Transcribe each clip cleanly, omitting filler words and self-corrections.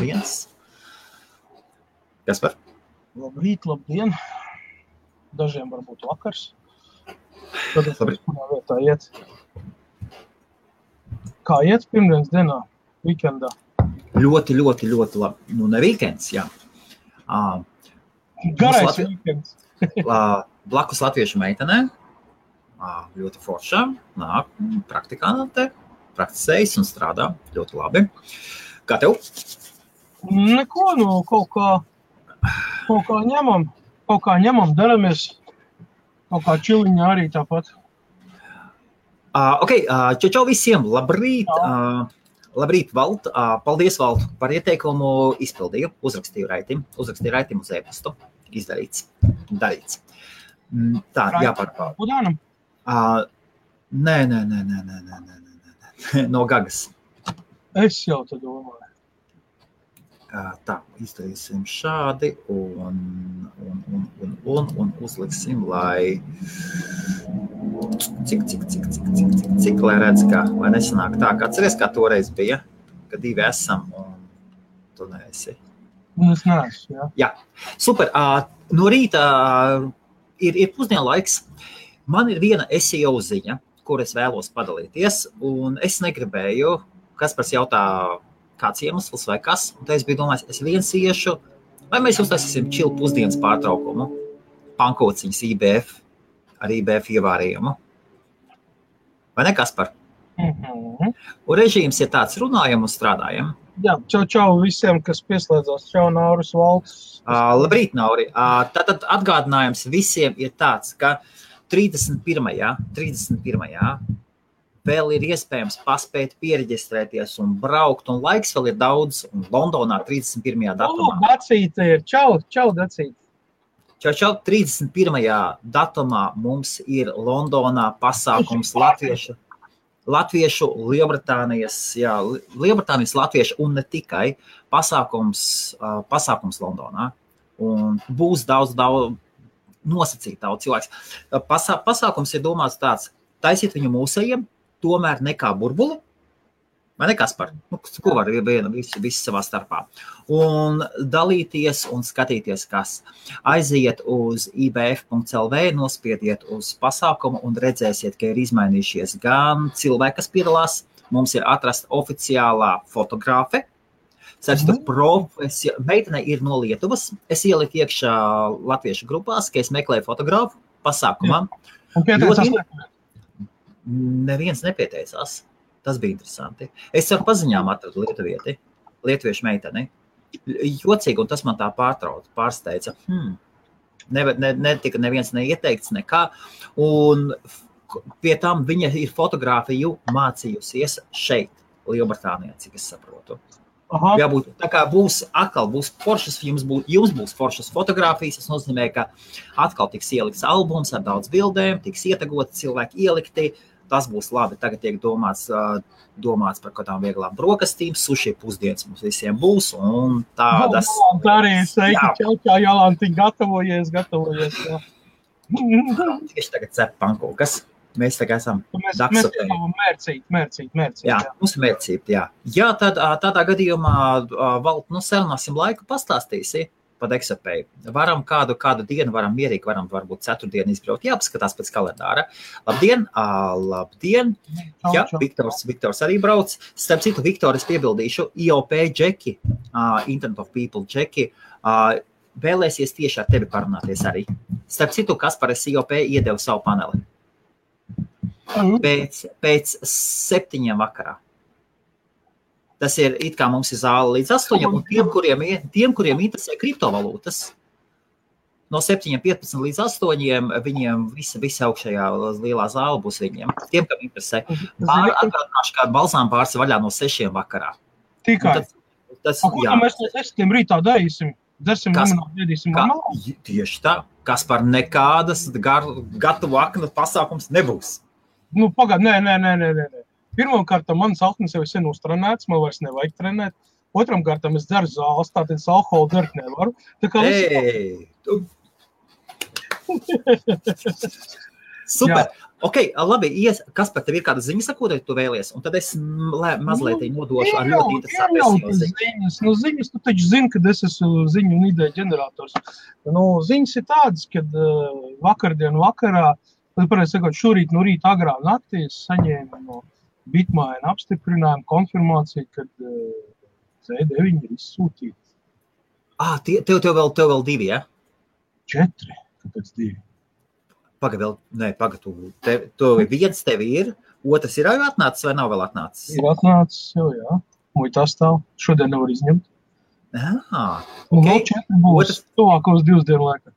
viens. Kaspar? Labrīt, labdien. Dažiem varbūt vakars. Tad es kurā vietā iet. Kā iet pirmdienas dienā, weekendā? Ļoti labi. Nu, ne weekends, jā. Garais weekends. Blakus latviešu meitenē. Ļoti foršā. Nāk, praktikante, praktisējas un strādā ļoti labi. Kā tev? Neko, nu, kaut kā ņemam, daramies. Kaut kā čiliņā arī tāpat. Čau visiem, labrīt. Labrīt, Valt. Paldies, Valt, par ieteikumu izpildīju. Uzrakstīju raitimu uz e-pastu. Izdarīts. Darīts. Tā, jāpārpār. Budānam? Nē. No Gagas. Es jau te domāju. Tā, izdarīsim šādi un uzliksim, lai cik lai redz, lai nesanāk tā, kā atceries, kā toreiz bija, kad divi esam un tu neesi. Un es neesmu, jā. Jā, super. No rīta ir pusdienlaiks. Man ir viena SEO ziņa, kur es vēlos padalīties, un es negribēju, Kaspars jautā, kāds iemesls vai kas, un tā es biju domājis, es viens iešu, vai mēs uztaisīsim čilu pusdienas pārtraukumu, pankociņas IBF, ar IBF ievārījumu. Vai ne, Kaspar? Un režīms ir tāds, runājam un strādājam. Jā, čau visiem, kas pieslēdzās. Čau, Nauris, Valts. Labrīt, Nauri. Tātad atgādinājums visiem ir tāds, ka 31. vēl ir iespējams paspēt piereģistrēties un braukt, un laiks vēl ir daudz, un Londonā 31. datumā. Dacīte ir. Čau, Dacīte. Čau, 31. datumā mums ir Londonā pasākums Latviešu, Lielbritānijas latviešu un ne tikai pasākums Londonā. Un būs daudz nosacīt daudz cilvēks. Pasākums ir domāts tāds, taisīt viņu mūsējiem, tomēr nekā burbuli, vai ne, Kaspar? Ko var visi savā starpā? Un dalīties un skatīties, kas. Aiziet uz ibf.lv, nospiediet uz pasākumu un redzēsiet, ka ir izmainījušies gan cilvēki, kas piedalās. Mums ir atrasta oficiālā fotogrāfe. Meitene ir no Lietuvas. Es ieliku iekšā latviešu grupās, ka es meklēju fotogrāfu pasākumā. Un pieteicās Neviens nepieteicās. Tas bija interesanti. Es ar paziņām atradu lietuviešu meiteni. Jocīgi, un tas man tā pārsteidza. Netika neviens neieteikts nekā. Un pie tam viņa ir fotogrāfiju mācījusies šeit, Lielbritānijā, cik es saprotu. Jābūt, tā kā būs foršas, jums būs foršas fotogrāfijas, tas nozīmē, ka atkal tiks ielikts albums ar daudz bildēm, tiks ietagoti cilvēki ielikti, tas būs labi. Tagad tiek domāts par kādām vieglām brokastīm, suši pusdienas mums visiem būs, un tādas... Tā arī sveiki, čau, Jolanti, gatavojies, jā. Tieši tagad cep pankūkas. Mēs tagad esam daksotēji. Mērcīt. Jā, mums ir mērcīt, jā. Jā, tādā gadījumā, Valt, sarunāsim laiku, pastāstīsi pa Daksotēju. Varam kādu dienu, varam mierīgi, varbūt ceturtdienu izbraukt. Jāpaskatās pēc kalendāra. Labdien. Jā, Viktors arī brauc. Starp citu, Viktor, es piebildīšu, IOP Džeki, Internet of People Džeki, vēlēsies tieši ar tevi parunāties arī. Starp citu, Kaspar, es IOP iedevu savu paneli. Pēc 7 vakarā. Tas ir, it kā mums ir zāle līdz 8, un tiem, kuriem interesē kriptovalūtas, no 7:15 līdz 8, viņiem visa augšējā lielā zāle būs viņiem. Tiem, kam interesē. Atgādināšu, kā balzām pāris vaļā no 6 vakarā. Tikai. Ko mēs no 6 rītā darīsim? Dersim limonādi, ēdīsim limonādi? Tieši tā. Kaspar, nekādas gatavu aknu pasākums nebūs. Pagad, nē. Pirmkārt, manas aknas jau ir sen uztrenēts, man vairs nevajag trenēt. Otramkārt, es dzeru zāles, tātad es alkoholu dzert nevaru. Tā kā Super. Ok, labi, Kaspar, tev ir kāda ziņa sakot, tu vēlies, un tad es mazliet nodošu ar ļoti interesantu ziņas. Nu, ziņas, tu taču zini, kad es esmu ziņu un ideju ģenerators. Nu, ziņas ir tādas, kad vakardien vakarā, pareizi sakot, šorīt no rīta agrā naktī es saņēmu no Bitmaina apstiprinājumu konfirmāciju, kad C9 ir izsūtīti. Tev vēl 2, ja? 4, kāpēc 2? Tev viens tev ir, otrs ir jau atnācis vai nav vēl atnācis? Ir atnācis jau, jā. Muitā stāv. Šodien nevar izņemt. Un vēl 4 būs tuvākos 2 dienu laikā.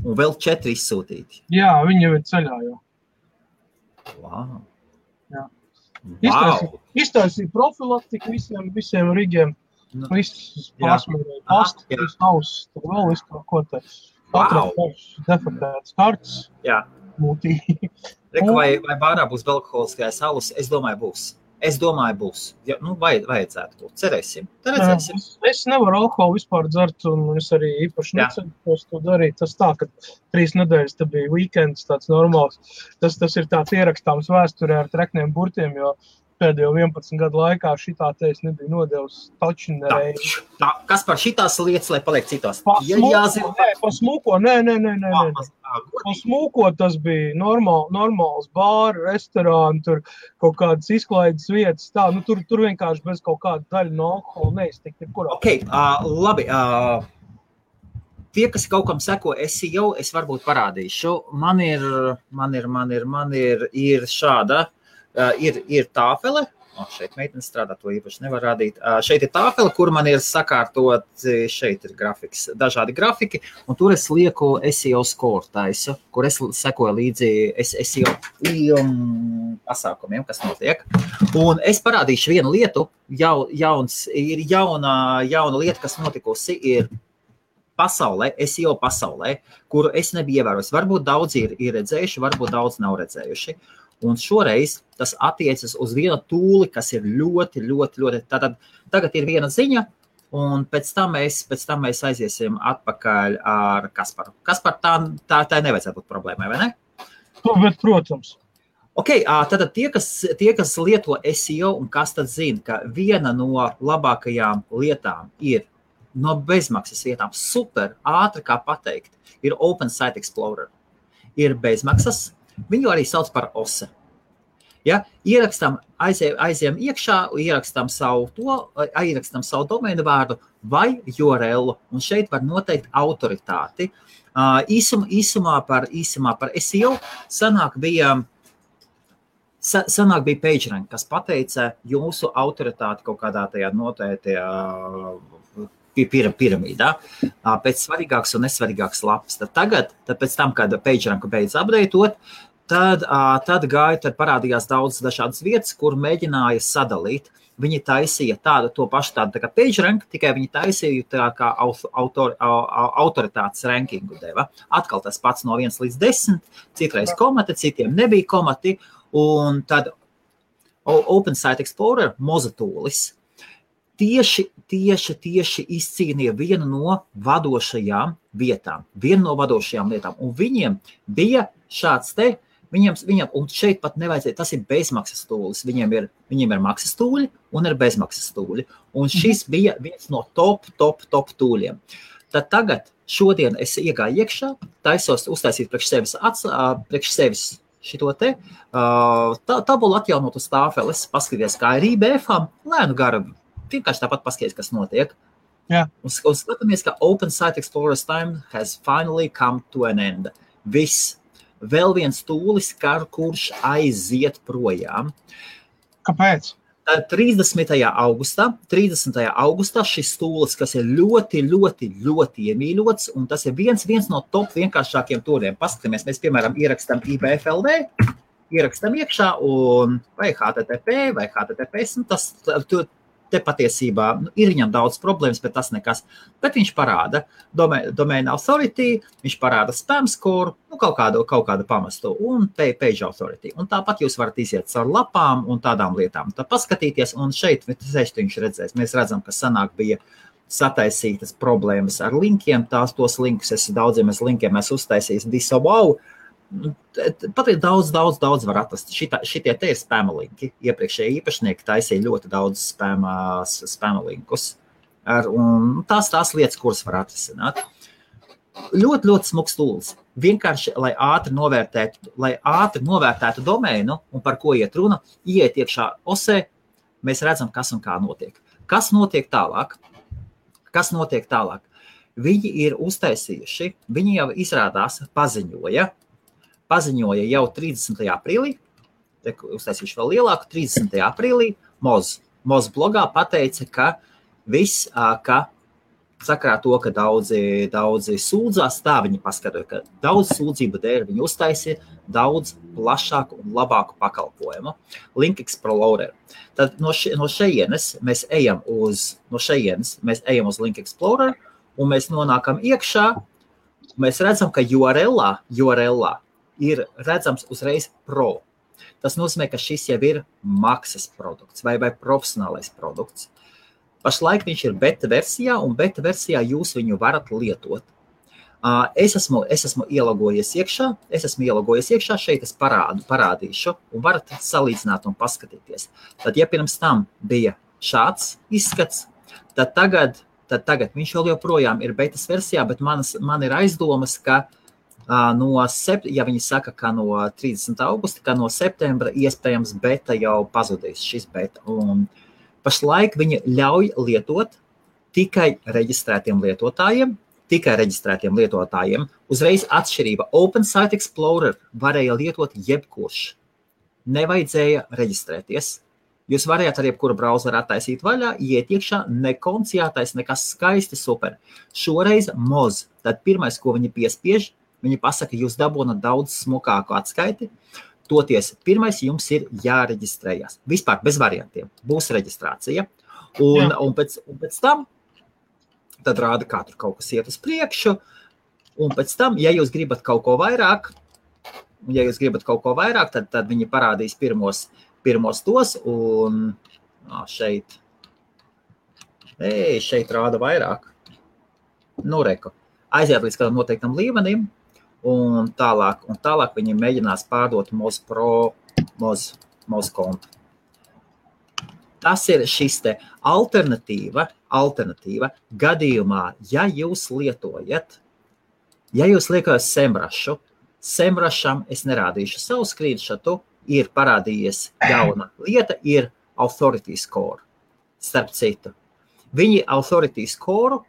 Un vēl 4 izsūtīti? Jā, viņi jau ir ceļā jau. Wow. Jā. Iztaisīja profilaktiku visiem rigiem. Viss pārsmērēja pastu, viss auss, tur vēl viss kaut ko te. Katrā defektētas kartas. Jā. Mūtīgi. Vai bārā būs belkoholiskais alus? Es domāju, būs. Ja, vajadzētu būt. Cerēsim. Es nevaru alkoholu vispār dzert, un es arī īpaši necentos to darīt. Tas tā, ka 3 nedēļas te bija weekends tāds normāls. Tas ir tāds ierakstāms vēsturē ar trekniem burtiem, jo pēdējo 11 gadu laikā šitā te es nebija nodevis taču nereizi. Kas par šitās lietas, lai paliek citās? Pa smūko, nē. Pa smūko tas bija normāls bāri, restorāni, tur kaut kādas izklaides vietas, tā, nu tur vienkārši bez kaut kāda daļa no alkohola neiztikt ir kurā. Ok, labi. Tie, kas kaut kam seko, es varbūt parādīšu. Man ir šāda. Ir tāfele, šeit meitene strādā, to īpaši nevar rādīt. Šeit ir tāfele, kur man ir sakārtot, šeit ir grafiks, dažādi grafiki, un tur es lieku SEO score taisu, kur es sekoju līdzi SEO pasākumiem, kas notiek. Un es parādīšu vienu lietu, jauna lieta, kas notikusi, ir pasaulē, SEO pasaulē, kuru es nebiju ievērojis. Varbūt daudzi ir redzējuši, varbūt daudz nav redzējuši. Un šoreiz tas attiecas uz vienu tūli, kas ir ļoti. Tātad tagad ir viena ziņa, un pēc tam mēs aiziesim atpakaļ ar Kasparu. Kaspar, tā nevajadzētu būt problēmai, vai ne? Bet, protams. Ok, tātad tie, kas lieto SEO, un kas tad zina, ka viena no labākajām lietām ir no bezmaksas vietām, super, ātri kā pateikt, ir Open Site Explorer. Ir bezmaksas. Viņu arī sauc par OSE. Ja? Aizējam iekšā, ierakstam savu domēnu vārdu vai URL, un šeit var noteikt autoritāti. Īsumā par SEO sanāk bija PageRank, kas pateica jūsu autoritāti kaut kādā tajā noteiktajā piramīdā, pēc svarīgāks un nesvarīgāks lapas. Tad pēc tam, kad PageRanku beidz updateot, tad parādījās daudz dažādas vietas, kur mēģināja sadalīt. Viņi taisīja to pašu tādu kā PageRank, tikai viņi taisīja tā kā autoritātes rankingu deva. Atkal tas pats no 1 līdz 10, citreiz komati, citiem nebija komati, un tad Open Site Explorer mozatūlis tieši izcīnīja vienu no vadošajām lietām, un viņiem bija šāds viņam, un šeit pat nevajadzēja, tas ir bezmaksas tūlis, viņiem ir maksas tūļi un ir bezmaksas tūļi, un šis bija viens no top tūļiem. Tad tagad, šodien es iegāju iekšā, taisos uztaisīt priekš sevis šito te, tabulu atjaunot uz tāfeles, paskaties, kā ir IBF-am, lēnu garu, vienkārši tāpat paskaties, kas notiek. Jā. Un skatāmies, ka Open Site Explorer's time has finally come to an end. Viss. Vēl viens tūlis, kurš aiziet projām. Kāpēc? 30. augustā šis tūlis, kas ir ļoti iemīļots, un tas ir viens no top vienkāršākiem tūliem. Paskatāmies, mēs, piemēram, ierakstam IBFLD, ierakstam iekšā, un vai HTTP, vai HTTPS, tas te patiesībā ir viņam daudz problēmas, bet tas nekas. Bet viņš parāda domain authority, viņš parāda spam score, kaut kādu pamestu, un page authority. Un tāpat jūs varat iziet caur lapām un tādām lietām. Tad paskatīties, un šeit viņš redzēs. Mēs redzam, ka sanāk bija sataisītas problēmas ar linkiem. Tos linkus, daudziem linkiem es uztaisījis disavow, Pat ir daudz var atrast. Šitie te ir spama linki. Iepriekšējie īpašnieki taisīja ļoti daudz spama linkus. Un tās lietas, kuras var atrisināt. Ļoti smuks tūlis. Vienkārši, lai ātri novērtētu domēnu un par ko iet runa, iet iekšā osē, mēs redzam, kas un kā notiek. Kas notiek tālāk? Viņi ir uztaisījuši, viņi jau izrādās paziņoja jau 30. aprīlī, uztaisījuši vēl lielāku, 30. aprīlī, Moz blogā pateica, ka viss, ka sakarā to, ka daudzi sūdzās, tā viņi paskatīja, ka daudz sūdzību dēļ viņi uztaisīja daudz plašāku un labāku pakalpojumu. Link Explorer. Tad no šejienes mēs ejam uz Link Explorer, un mēs nonākam iekšā, mēs redzam, ka URL ir redzams uzreiz Pro. Tas nozīmē, ka šis jau ir maksas produkts vai profesionālais produkts. Pašlaik viņš ir beta versijā, un beta versijā jūs viņu varat lietot. Es esmu ielogojies iekšā, šeit es parādīšu, un varat salīdzināt un paskatīties. Tad, ja pirms tam bija šāds izskats, tad tagad viņš vēl joprojām ir betas versijā, bet man ir aizdomas, ka ja viņi saka, ka no 30. augusta, ka no septembra iespējams beta jau pazudīs šis beta. Un pašlaik viņi ļauj lietot tikai reģistrētiem lietotājiem. Uzreiz atšķirība. Open Site Explorer varēja lietot jebkurš. Nevajadzēja reģistrēties. Jūs varējāt ar jebkuru brauzeru attaisīt vaļā, iet iekšā, nekonts jātais, nekas skaisti, super. Šoreiz Moz. Tad pirmais, ko viņi piespiež, viņi pasaka, jūs dabūnat daudz smukāku atskaiti. Toties, pirmais jums ir jāreģistrējas. Vispār bez variantiem. Būs reģistrācija. Un pēc tam tad rāda, kā tur kaut kas iet uz priekšu. Un pēc tam, ja jūs gribat kaut ko vairāk, tad viņi parādīs pirmos tos. Un šeit rāda vairāk. Nu, reku. Aiziet līdz kādam noteiktam līmenim. Un tālāk viņi mēģinās pārdot Moz Pro, Moz kontu. Tas ir šis te alternatīva gadījumā, ja jūs lietojat Semrusham, es nerādīšu savu screenshotu, ir parādījies jauna lieta, ir Authority Score. Starp citu, viņi Authority Score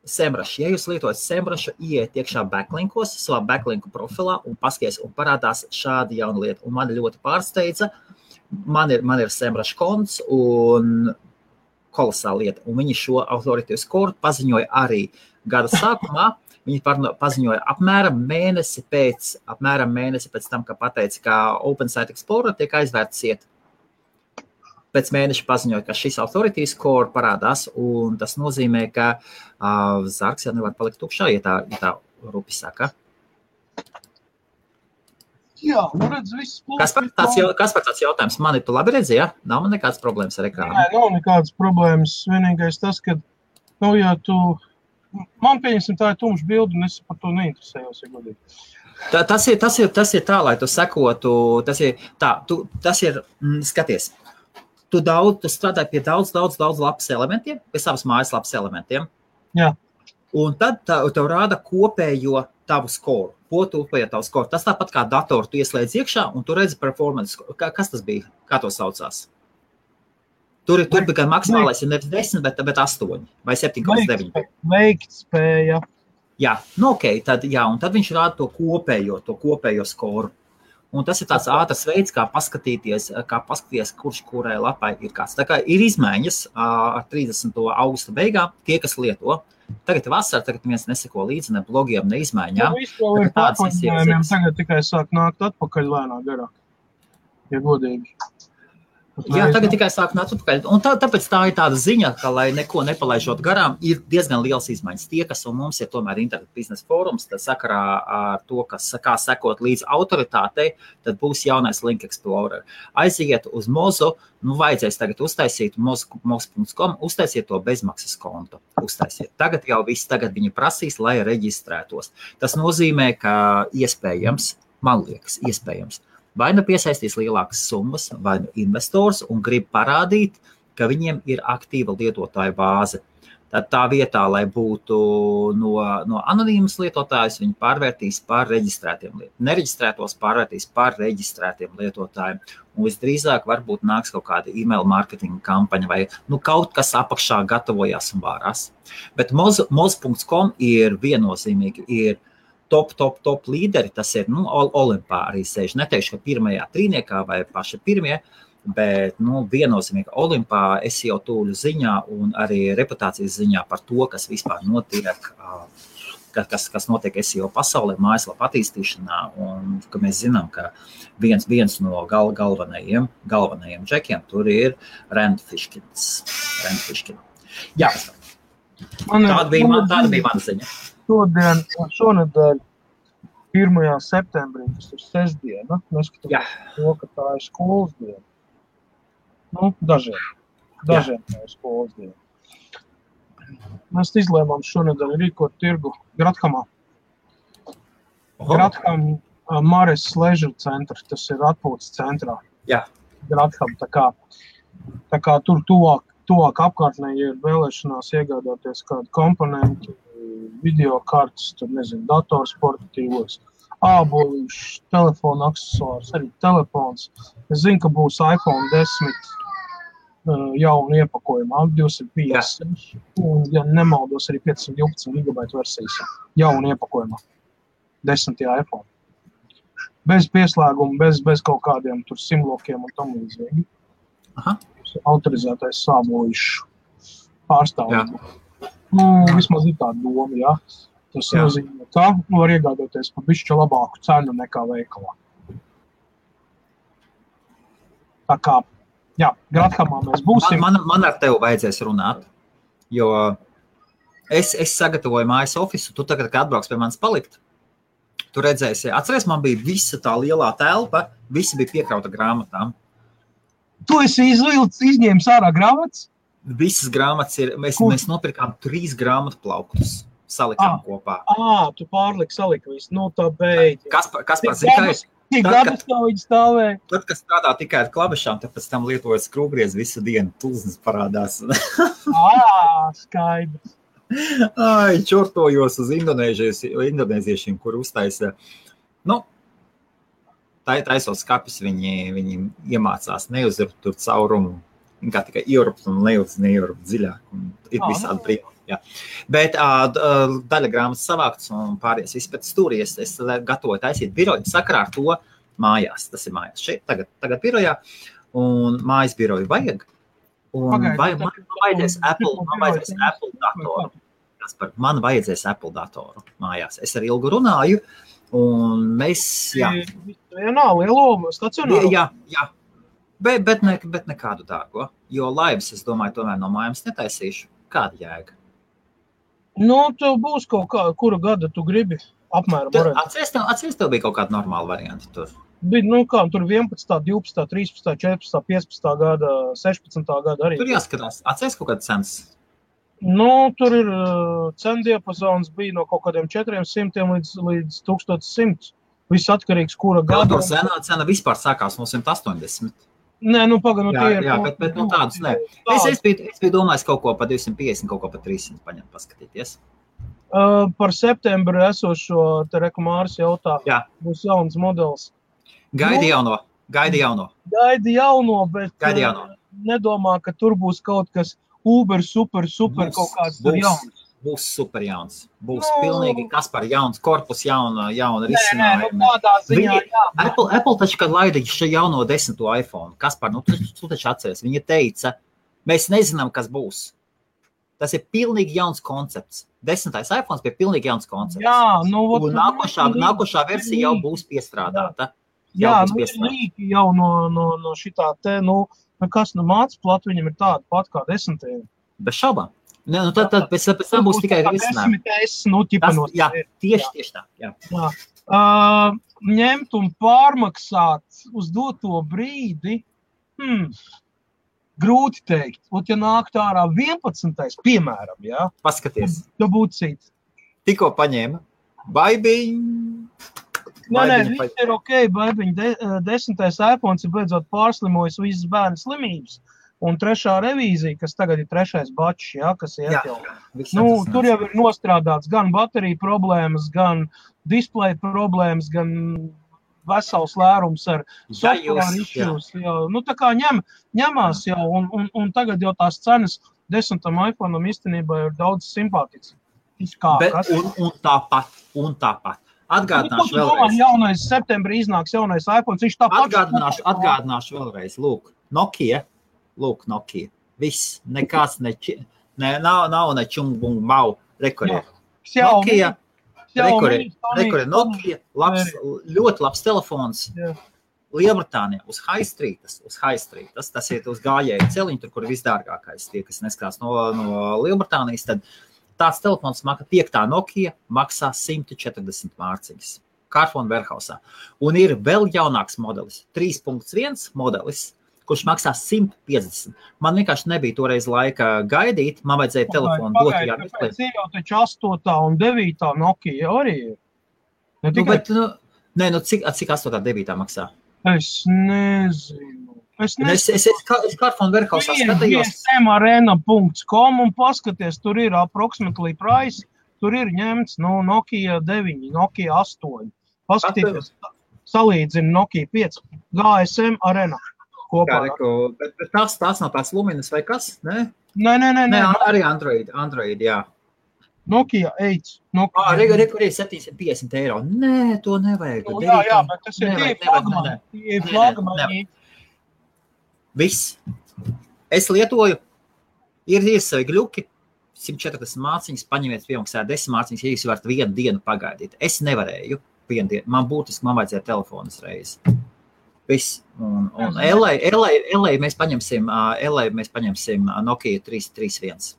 Semrush. Ja jūs lietojat Semrushu, ieiet iekšā backlinkos, savā backlinku profilā un paskaties, un parādās šāda jauna lieta. Un mani ļoti pārsteidza. Man ir Semrush konts un kolosāla lieta. Un viņi šo Authority Score paziņoja arī gada sākumā. Viņi paziņoja apmēram mēnesi pēc tam, ka pateica, ka Open Site Explorer tiek aizvērts iet. Pēc mēneša paziņoja, ka šis Authority Score parādās, un tas nozīmē, ka zargs jau nevar palikt tukšā, ja tā rupi saka. Jā, redz, viss plūst. Kas par tāds jautājums? Mani tu labi redzi, ja? Nav man nekādas problēmas ar ekrānu? Nē, nav nekādas problēmas. Vienīgais tas, ka, ja tu... Man pieņemsim, tā ir tumša bilde, un es par to neinteresējos, ja godīgi. Tas ir tā, lai tu sekotu, tas ir, skaties, tu strādāji pie daudz lapas elementiem, pie savas mājas lapas elementiem. Jā. Un tad tev rāda kopējo tavu skoru. Tas tāpat kā datoru tu ieslēdz iekšā, un tu redzi performance. Kas tas bija? Kā to saucās? Tur bija gan maksimālais, ja nevis 10, bet 8 vai 7,9. Veikt spēja. Jā, tad viņš rāda to kopējo skoru. Un tas ir tāds ātrs veids, kā paskatīties, kurš kurai lapai ir kāds. Tā kā ir izmaiņas ar 30. augusta beigām, tie, kas lieto. Tagad vasara, tagad viens neseko līdzi ne blogiem, ne izmaiņām. Tagad tikai sāk nākt atpakaļ lēnā garāk, ja godīgi. Jā, tagad tikai sāk nākt atpakaļ. Un tāpēc tā ir tāda ziņa, ka, lai neko nepalaižot garām, ir diezgan liels izmaiņas. Tie, kas un mums ir tomēr internet biznesa fórums, tad sakarā ar to, kā sekot līdz autoritātei, tad būs jaunais Link Explorer. Aiziet uz Mozu, vajadzēs tagad uztaisīt moz.com, uztaisiet to bezmaksas kontu. Uztaisiet. Tagad jau viss, tagad viņi prasīs, lai reģistrētos. Tas nozīmē, ka iespējams man liekas, iespējams. Vai nu piesaistīs lielākas summas, vai nu investors un grib parādīt, ka viņiem ir aktīva lietotāja bāze. Tad tā vietā, lai būtu no anonīmas lietotājus, viņi pārvērtīs par reģistrētiem lietotājiem. Nereģistrētos pārvērtīs par reģistrētiem lietotājiem. Un visdrīzāk varbūt nāks kaut kāda email marketinga kampaņa vai kaut kas apakšā gatavojās un vārās. Bet moz.com ir viennozīmīgi, ir top līderi, tas ir Olimpā arī sēž. Neteikšu, ka pirmajā trīniekā vai paši pirmie, bet viennozīmīgi Olimpā SEO tūļu ziņā un arī reputācijas ziņā par to, kas vispār notiek, kas notiek SEO pasaulē, mājaslapa attīstīšanā, un ka mēs zinām, ka viens no galvenajiem džekiem tur ir Rand Fishkins. Jā, tāda bija mana ziņa. Šonedēļ 1. septembrī, tas ir sestdiena, neskatoties to, ka tā ir skolas diena. Dažiem tā ir skolas diena. Mēs izlēmām šonedēļ rīkot tirgu Grathamā. Gratham Mares Leisure Center, tas ir atpūtas centrā. Jā. Gratham, tā kā tur tuvāk apkārtnē, ja ir vēlēšanās iegādāties kādu komponentu, video kartes, tur nezinu, datorsportatīvos, ābolīšus, telefona aksesuārus, arī telefons. Es zinu, ka būs iPhone 10 jaunu iepakojumā, 256, un, ja nemaldos, arī 512 GB versijas jaunu iepakojumā, 10. iPhone. Bez pieslēguma, bez kaut kādiem tur simlokiem un tam līdzīgi. Autorizētais ābolīšu pārstāvību. Vismaz ir tāda doma, jā. Tas nozīmē, ka var iegādāties par bišķi labāku cenu nekā veikalā. Tā kā, Grathamā mēs būsim. Man ar tevi vajadzēs runāt, jo es sagatavoju mājas ofisu, tu tagad, kad atbrauks pie manis palikt, tu redzēsi, atceries, man bija visa tā lielā telpa, visi bija piekrauta grāmatām. Tu esi izņēmis ārā grāmatas? Visas grāmatas ir, mēs nopirkām 3 grāmatu plauktus, salikām kopā. Tu pārliki salika visu, tā beidz. Kas par zikais? Cik gadus tā viņi stāvēja? Tad, kas strādā tikai ar klavešām, tad pēc tam lietojas skrūvgriez visu dienu, tulznes parādās. Skaidrs. Čortojos uz indonēziešiem, kur uztaisa, taisos skapis, viņi iemācās neuzrupt tur caurumu. Kā tikai ierupt un neierupt dziļāk. Un ir visādi brīnumi. Bet daļa grāmatas savāktas un pāries viss pēc stūri. Es gatavoju taisīt biroju sakarā ar to mājās. Tas ir mājās šeit, tagad birojā. Un mājas biroju vajag. Un man vajadzēs Apple datoru. Man vajadzēs Apple datoru mājās. Es ar Ilgu runāju. Un mēs, lielo stacionāru? Jā. Bet nekādu dārgo, jo laivas, es domāju, tomēr no mājums netaisīšu. Kāda jēga? Tu būs kaut kā, kura gada tu gribi apmēram. Atceries, tev bija kaut kāda normāla varianta tur? Bija, tur 11, 12, 13, 14, 15 gada, 16 gada arī. Tur jāskatās. Atceries kaut kāda cenas? Tur ir cendiapazons bija no kaut kādiem 400 līdz 1100. Viss atkarīgs, kura gada. Senā cena vispār sākās no 180. Nē, pagaidām, jā, bet tādus nē. Es biju domājis kaut ko pa 250, kaut ko pa 300 paņemt, paskatīties. Par septembru esošo te Māris jautā, būs jauns modelis. Gaidi jauno. Gaidi jauno, bet nedomā, ka tur būs kaut kas super kaut kāds tur jauns. Būs super jauns. Būs pilnīgi kas par jauns korpus, jauna risinājumi. Apple taču, kad laida šo jauno 10. iPhone, kas par, tu taču atceries, viņa teica, mēs nezinām, kas būs. Tas ir pilnīgi jauns koncepts. 10. iPhones bija pilnīgi jauns koncepts. Un nākošā versija jau būs piestrādāta. Rīki jau no šitā te, kas māca platu, viņam ir tāda pat kā 10. Bez šaubām. Tad pēc tam būs tikai risinājumi. Tieši tā. Jā. Ņemt un pārmaksāt uz doto brīdi, grūti teikt. Ja nāk ārā 11. piemēram, Paskaties. Tu būtu cīt. Tikko paņēma. Baibiņ. viss ir ok, baibiņ, 10. iPhones ir beidzot pārslimojis visas bērnu slimības. Un 3. revīzija, kas tagad ir 3. bačs, kas iet jau. Tur jau ir nostrādāts gan bateriju problēmas, gan displeja problēmas, gan vesels lērums ar software issues. Tā kā ņemās jau, un tagad jau tās cenas 10. iPhone'am īstenībā ir daudz simpātiks. Un tāpat. Atgādināšu vēlreiz. Jaunais septembrī iznāks jaunais iPhones, viņš tāpat. Atgādināšu vēlreiz. Nokia. Viss. Nekāds nav ne čumbung mau. Nokia. Nokia. Ļoti labs telefons. Lielbritānijā uz High Street. Tas ir uz gājēju celiņu, tur, kur ir visdārgākais. Tie, kas neskatās no Lielbritānijas, tad tāds telefons 5. Nokia maksā 140 mārciņas. Carphone Warehousā. Un ir vēl jaunāks modelis, 3.1 modelis, kurš maksā 150. Man vienkārši nebija toreiz laika gaidīt, man vajadzēja telefonu dot. Pēc ir jau taču 8. un 9. Nokia arī ir. Cik 8. 9. maksā? Es nezinu. Es Carphone Warehousā skatījos. gsmarena.com un paskaties, tur ir approximately price, tur ir ņemts Nokia 9, Nokia 8. Paskatieties, salīdzina Nokia 5, GSM Arena. Bet tās nav tās Luminas vai kas? Nē, arī Android, jā. Nokia 8. Kur ir 750 eiro. Nē, to nevajag. Jā, bet tas ir flagmani. Viss. Es lietoju, ir savi gļuki, 140 māciņas, paņemiet piemaksā 10 māciņas, ja jūs varat 1 dienu pagaidīt. Es nevarēju 1 dienu. Man vajadzēja telefonas reizi. Viss. Un LA mēs paņemsim Nokia 331.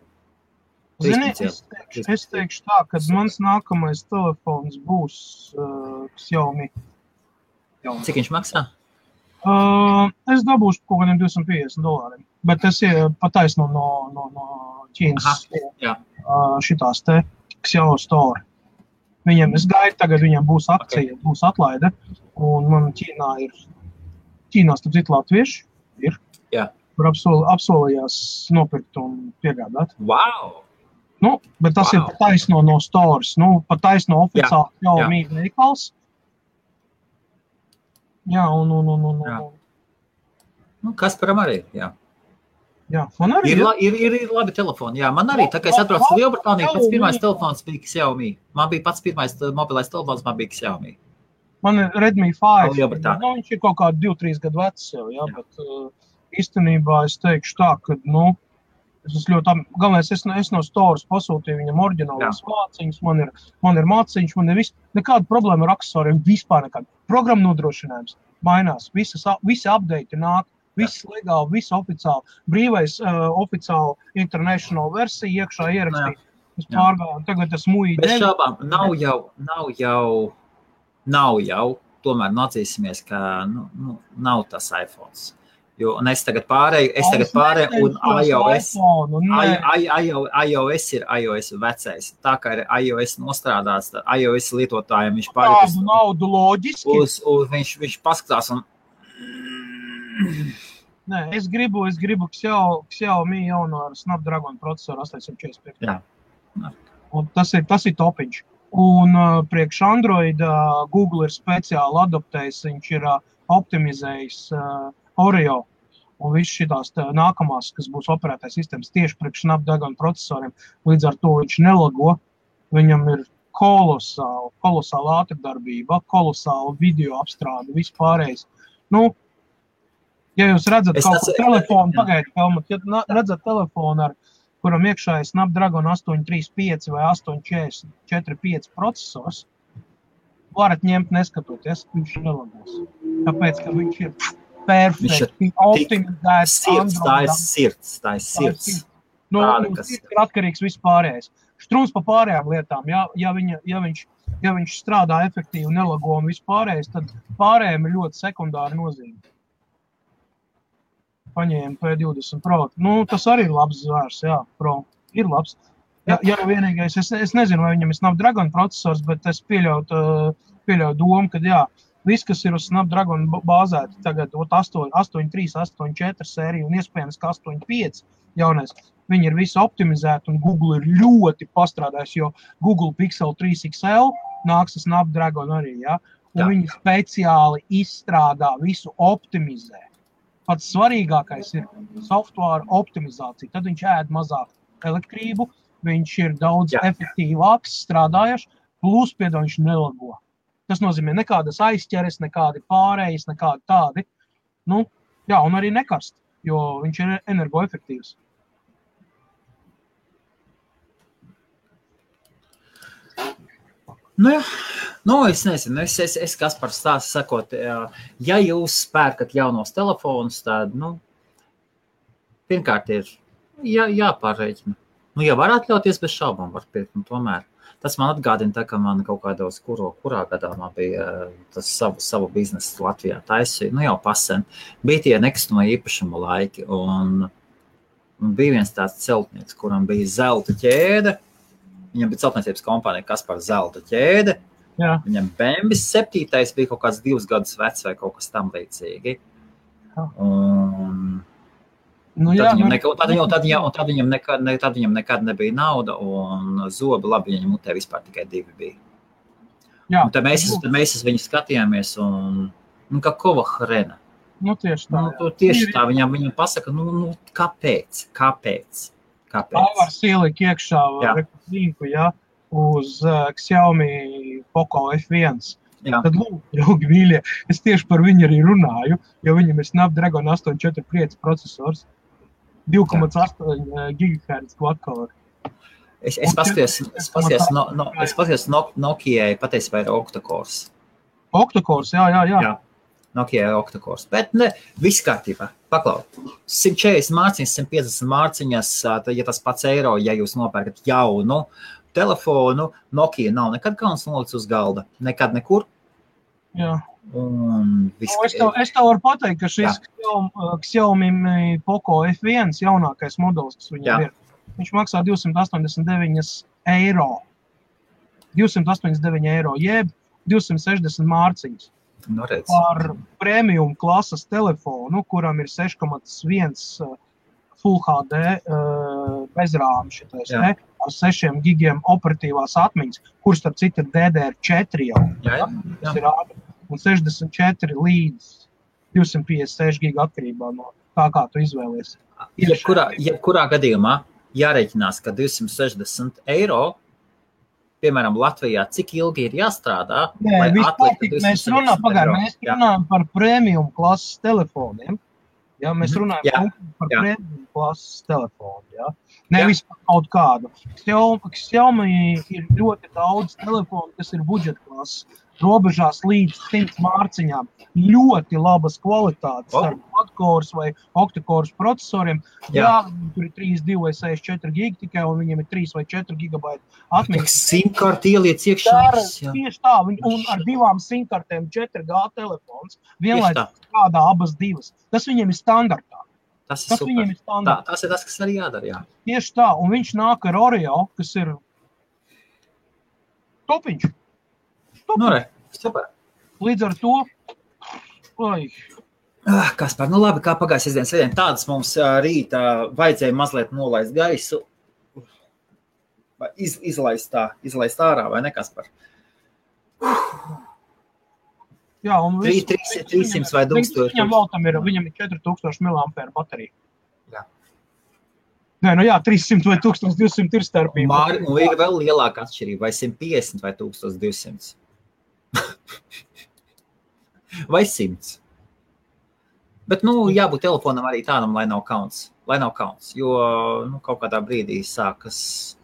Zini, es teikšu tā, kad mans nākamais telefons būs Xiaomi. Cik viņš maksā? Es dabūšu kaut kādiem $250, bet tas ir pataisno no Ķīnas šitās te Xiao Store. Es gaidu tagad, viņam būs akcija, būs atlaide, un man Ķīnā starp citu latvieši ir, kur apsolījās nopirkt un piegādāt. Wow! Bet tas ir pataisno no stores, pataisno oficiāli Xiaomi veikals. Jā, Kasparam arī, jā. Jā, man arī ir labi telefoni, jā. Man arī, tā kā es atbraucu Lielbritāniju, pats pirmais telefons bija Xiaomi. Man bija pats pirmais mobilais telefons, man bija Xiaomi. Man ir Redmi 5, viņš ir kaut kādi 2-3 gadu vecs jau, bet īstenībā es teikšu tā, ka, galvenais, es no stores pasūtīju viņam oriģinālās māciņas, man ir māciņas, man ir nekāda problēma ar aksesoriem, vispār nekāda. Programma nodrošinājums mainās, visi update nāk, viss legāli, viss oficiāli, brīvais oficiāli international versija iekšā ierakstīt. Es pārgāju, tagad es muļi Bez šābām, nav jau, tomēr atzīsimies, ka nav tas iPhones. Jo, un es tagad pārēju, un iOS ir iOS vecais. Tā kā ir iOS nostrādāts, iOS lietotājiem viņš pārēj naudu loģiski. Viņš paskatās un... Nē, es gribu Xiaomi jauno ar Snapdragon procesoru 845. Jā. Un tas ir topiņš. Un priekš Android Google ir speciāli adaptējis, viņš ir optimizējis Oreo un viss šitās nākamās, kas būs operētais sistēmas tieši priekš Snapdragon procesoriem. Līdz ar to viņš nelago, viņam ir kolosāla ātrdarbība, kolosāla video apstrāde, viss pārējais. Ja jūs redzat kaut ko telefonu, ja redzat telefonu, kuram iekšā ir Snapdragon 835 vai 845 procesors, varat ņemt neskatoties, viņš nelagos. Tāpēc, ka viņš ir perfekti optimizēts. Tā ir sirds. Sirds ir atkarīgs viss pārējais. Strūns pa pārējām lietām, ja viņš strādā efektīvi, nelago un viss pārējais, tad pārējiem ir ļoti sekundāra nozīme. Paņēma P20 Pro. Tas arī ir labs zvērs, Pro. Ir labs. Ja vienīgais, es nezinu, vai viņam ir Snapdragon procesors, bet es pieļautu pieļauju domu, ka jā, viss, kas ir uz Snapdragon bāzēti, tagad 8.3, 8.4 sērija un iespējams, ka 8.5 jaunais, viņi ir visi optimizēti un Google ir ļoti pastrādājis, jo Google Pixel 3 XL nāks ar Snapdragon arī, ja? Un viņi speciāli izstrādā visu optimizē. Pats svarīgākais ir software optimizācija. Tad viņš ēd mazāk elektrību, viņš ir daudz efektīvāks strādājuši, plus viņš nelago. Tas nozīmē nekādas aizķeres, nekādi pārējas, nekādi tādi. Nu, jā, un arī nekarst, jo viņš ir energoefektīvs. Nu, jā. Nu, es nezinu, es Kaspar stāstu sakot, ja jūs pērkat jaunos telefonus, tad, nu, pirmkārt ir jāpārreķina. Nu, ja var atļauties, bez šaubām var pirkt, nu, tomēr. Tas man atgādina tā, ka man kaut kādos, kurā gadā man bija tas savu biznesu Latvijā taisīja, nu, jau pasen. Bija tie nekustamā īpašuma laiki, un bija viens tāds celtnieks, kuram bija zelta ķēde. Viņam bija celtniecības kompānija Kaspar zelta ķēde. Jā. Viņam Bembis 7. bija kaut kāds 2 gadus vecs vai kaut kas tam līdzīgi. Un tad viņam nekad nebija nauda un zobi labi viņam mutē vispār tikai 2 bija. Jā. Un tad mēs viņu skatījāmies un kā kova hrena. Nu, tieši tā. Tieši tā, viņam pasaka, kāpēc? Pavars ielika iekšā reklīku, uz Xiaomi Poco F1. Jā. Tad lūk, draugi mīļie, es tieši par viņu arī runāju, jo viņam ir Snapdragon 845 procesors, 2,8 GHz quad-core. Es paskatījos Nokijai patiesībā ir octa-cores. Octa-cores, jā. Nokia octa-cores, bet viss kārtībā. Paklau, 140 mārciņas, 150 mārciņas, ja tas pats eiro, ja jūs nopērkat jaunu telefonu, Nokia nav nekad kauns nolicis uz galda, nekad nekur. Jā. Es tev varu pateikt, ka šis Xiaomi Poco F1 jaunākais modelis, kas viņam ir, viņš maksā 289 eiro. 289 eiro, jeb 260 mārciņas. Par premium klases telefonu, kuram ir 6,1 Full HD bezrāmi šitais, ar 6 gigiem operatīvās atmiņas, kurš starp citu ir DDR4 jau. Tas ir ātri. Un 64 līdz 256 giga atkarībā no tā, kā tu izvēlies. Jebkurā gadījumā jārēķinās, ka 260 eiro, piemēram, Latvijā, cik ilgi ir jāstrādā, lai atliktu 260 Mēs runājam par premium klases telefoniem. Ja, mēs runājam par premium klases telefonu. Ja. Nevis par kaut kādu. Xiaomi ir ļoti daudz telefonu, kas ir budžeta klases. Robežās līdz 100 mārciņām. Ļoti labas kvalitātes ar quad-cores vai octa-cores procesoriem. Jā, tur ir 32 vai 64 gigi tikai, un viņiem ir 3 vai 4 gigabaiti atmiņas. SIM-karti ieliec iekšā. Tieši tā, un ar 2 SIM-kartēm 4G telefons. Vienlaicīgi strādā abas divas. Tas viņiem ir standartā. Tas ir super. Tas ir tas, kas arī jādara, jā. Tieši tā, un viņš nāk ar Oreo, kas ir topiņš. Super. Līdz ar to, Kaspar, labi, kā pagājās sestdienas svētdien, tādas mums rītā vajadzēja mazliet nolaist gaisu, izlaist ārā, vai ne, Kaspar? Jā, un 300 vai 1000. Viņam ir 4000 mAh baterija. Jā. Nē, 300 vai 1200 ir starpība. Māri, un ir vēl lielāka atšķirība, vai 150 vai 1200. Vai 100. Bet, jābūt telefonam arī tādam, lai nav kauns, jo, kaut kādā brīdī sākas.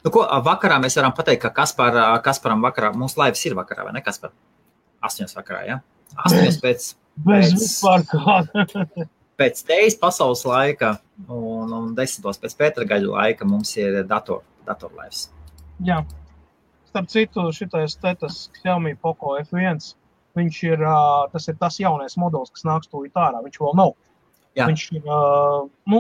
Vakarā mēs varam pateikt, ka Kasparam vakarā, mūsu laivas ir vakarā, vai ne, Kaspar? 8 vakarā, ja? 8 pēc tejas pasaules laika un 10 pēc Pētera gaļu laika mums ir datorlaivas. Jā. Starp citu, šitais Xiaomi Poco F1, tas ir tas jaunais modelis, kas nāks tūlīt ārā, viņš vēl nav. Jā. Viņš ir,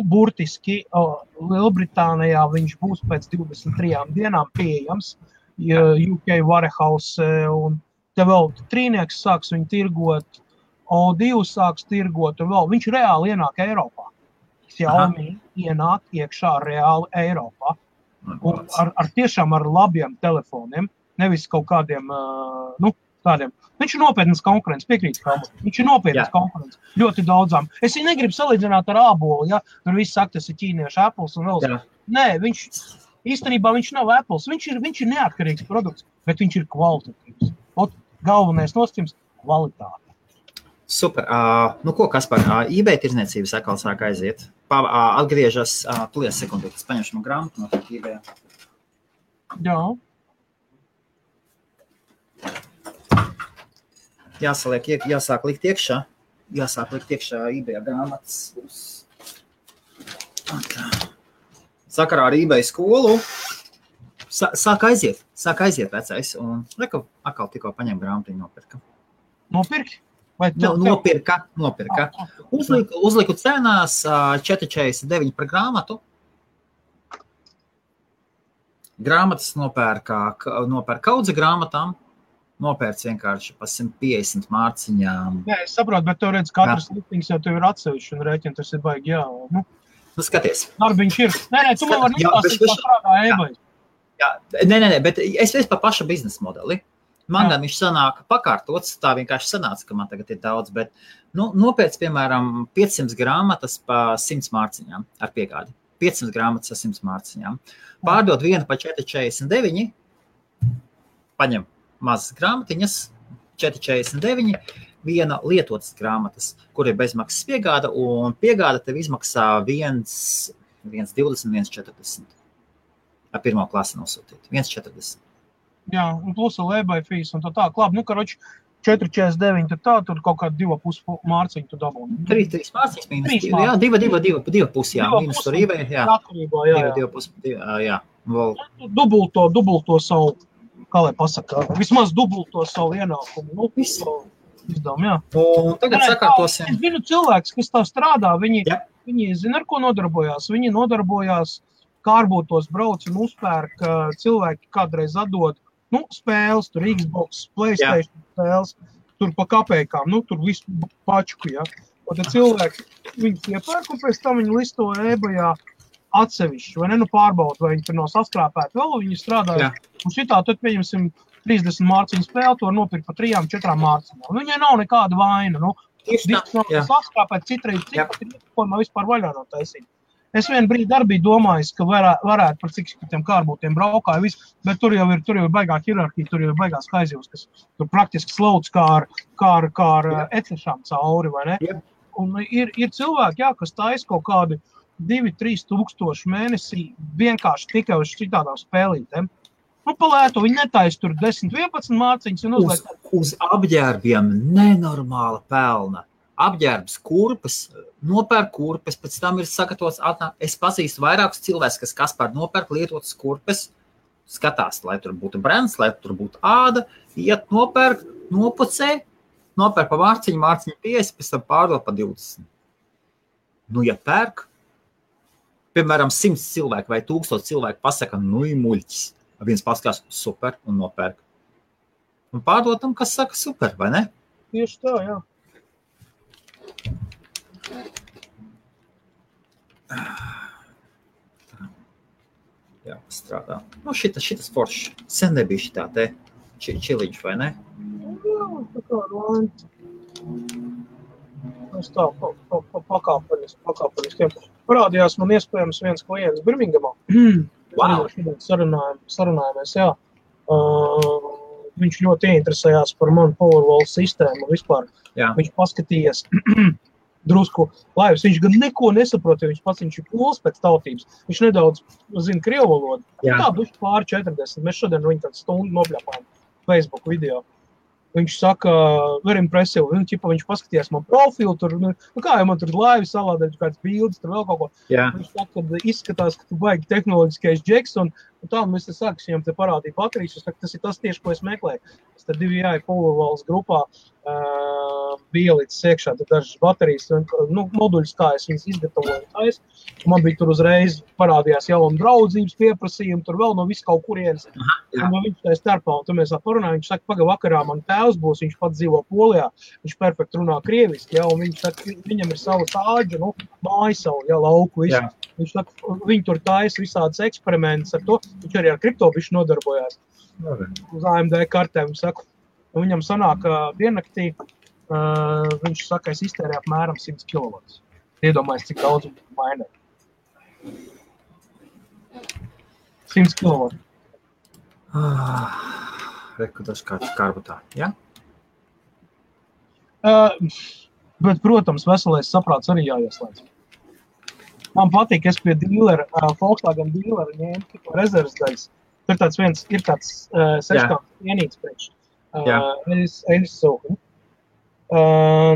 burtiski Lielbritānijā viņš būs pēc 23 dienām pieejams. UK Warehouse, un te vēl Trīnieks sāks viņu tirgot, O2 sāks tirgot, un vēl viņš reāli ienāk Eiropā. Xiaomi ienāk iekšā reāli Eiropā. Un ar tiešām ar labiem telefoniem, nevis kaut kādiem, tādiem. Viņš ir nopietnas konkurence, piekrīt, viņš ir nopietnas konkurence ļoti daudzām. Es viņu negribu salīdzināt ar ābolu, ja? Tur viss saka, tas ir ķīniešu Apples un vēl. Nē, īstenībā viņš nav Apples, viņš ir neatkarīgs produkts, bet viņš ir kvalitatīvs. Galvenais nosacījums – kvalitāte. Super. Ko, Kaspar, eBay tirdzniecības atkal sāk aiziet. Atgriežas, tulies sekundi, es paņemšu man grāmatu no eBay. Jā. Jāsāk likt iekšā eBay grāmatas. Sakarā ar eBay skolu sāk aiziet vecais. Un atkal tikko paņem grāmatiņu nopirka. Nopirki? Nopirka. Uzliku cenās 4,49 par grāmatu. Grāmatas nopērka kaudze grāmatām. Nopērts vienkārši pa 150 mārciņām. Nē, es saprotu, bet tev redz, katrs listings jau tev ir atsevišķi un rēķini, tas ir baigi, jā. Skaties. Darbiņš ir. Nē, tu man var nepasīt, kā strādā eBay. Nē, bet es pa paša biznesa modeli. Man gan viņš sanāk pakārtots, tā vienkārši sanāca, ka man tagad ir daudz, bet nopēc, piemēram, 500 grāmatas pa 100 mārciņām ar piegādi. 500 grāmatas ar 100 mārciņām. Pārdot vienu pa 4,49, paņem mazas grāmatiņas, 4,49, viena lietotas grāmatas, kur ir bezmaksas piegāda, un piegāda tev izmaksā 1,20, 1,40. Ar pirmo klasi nosūtīt. 1,40. Jā, un plus ar eBay fees un tā. Labi, karoči 4,49, tad tā, tur kaut kāda 2,5 mārciņu tu dabūni. 3 mārciņas mīnus, jā, 2,5, jā, mīnus tur eBay, jā. Atkarībā, jā. 2,5, jā. Dubulto savu, kā lai pasaka, vismaz dubulto savu ienākumu. Izdām, jā. Un tagad sakārtosim. Es zinu cilvēks, kas tā strādā, viņi zina, ar ko nodarbojās. Viņi nodarbojās, kārbūtos brauc un uzpērk cilvēki kādreiz atdod, spēles, tur Xbox, PlayStation spēles, tur pa kapējkām, tur visu pačku, ja. Un tad cilvēki viņus iepērk un pēc tam viņi listo eBayā atsevišķi, vai ne, pārbaud, vai viņi tur nav saskrāpēti vēl, viņi strādāja. Un šitā tad pieņemsim 30 mārciņu spēli, to nopirkt pa 3-4 mārciņām. Viņai nav nekāda vaina, disks nav saskrāpēt, citreiz ko man vispār vaļā nav taisīt. Es vienu brīdi arī biju domājis, ka varētu par cik tiem kārbūtiem braukāju visu, bet tur jau ir baigā hierarhija, tur jau ir baigās kaizivs, kas tur praktiski slauc kā ar ecešām cauri, vai ne? Yep. Un ir cilvēki, kas taisa kaut kādi 2-3 tūkstoši mēnesī vienkārši tikai uz šitādām spēlītēm. Palētu, viņi netaisa tur 10-11 mārciņas un uzliek. Uz apģērbiem nenormāla pelna. Apģērbs kurpes, nopērk kurpes, pēc tam ir sagatavots atnāk. Es pazīstu vairākus cilvēkus, kas pār nopērk lietotas kurpes, skatās, lai tur būtu brands, lai tur būtu āda, iet nopērk, nopucē, nopērk pa mārciņu 50, pēc tam pārdot pa 20. Ja pērk, piemēram, 100 cilvēku vai 1000 cilvēku pasaka, ir muļķis. Viens paskatās super un nopērk. Un pārdotam, kas saka super, vai ne? Tieši tā, jā. Jā, strādā. Šitas foršs. Sen nebija šitā te čiliņš, vai ne? Jā, tā kā rāņi. Es tā pakāpeniskiem. Parādījās man iespējams viens klients Birmingamā. Wow. Sarunājamies, jā. Viņš ļoti ieinteresējās par manu Powerwall sistēmu vispār. Jā. Viņš paskatījās drusku laivas. Viņš gan neko nesaprot, jo viņš ir pols pēc tautības. Viņš nedaudz zina krievu valodu. Tā duši pāri 40. Mēs šodien viņu tādu stundu nopļapājam Facebook video. Viņš saka, very impressive. Viņš paskatījās man profilu, tur, kā jau man tur laivi salādēt, kāds bildes, tur vēl kaut ko. Jā. Viņš saka, ka izskatās, ka tu baigi tehnoloģiskais džeks, un tā mēs te sākas viņam te parādīja baterijas. Es saku, tas ir tas tieši, ko es meklēju. Es tad 2 Powerwalls grupā bielītes iekšā, tad dažas baterijas, moduļus, kā es viņas izgatavoju. Man bija tur uzreiz parādījās jauna draudzības pieprasījumi, tur vēl no visu kaut kurienes. Un viņš tā starpā, un tur mēs parunājam, viņš saka, vakarā man tēvs būs, viņš pats dzīvo Polijā, viņš perfekti runā krieviski, un viņš saka, viņam ir savu sāģu, māju savu, lauku visu. Viņš saka, viņi tur taisa visādas eksperimentus ar to, viņš arī ar kriptobišu nodarbojās. Uz AMD kartēm, saku. Un viņam sanāk, diennaktī, viņš saka, es iztērēju apmēram 100 kW. Iedomājies, cik daudz mainē. 100 kW. Reku tas kāds karbutā, ja? Bet, protams, veselais saprāts arī jāieslēdz. Man patīk, es pie dīlera, Volkswagen dīlera ņēmu rezerves daļas. Ir tāds 6 vienīts priekš.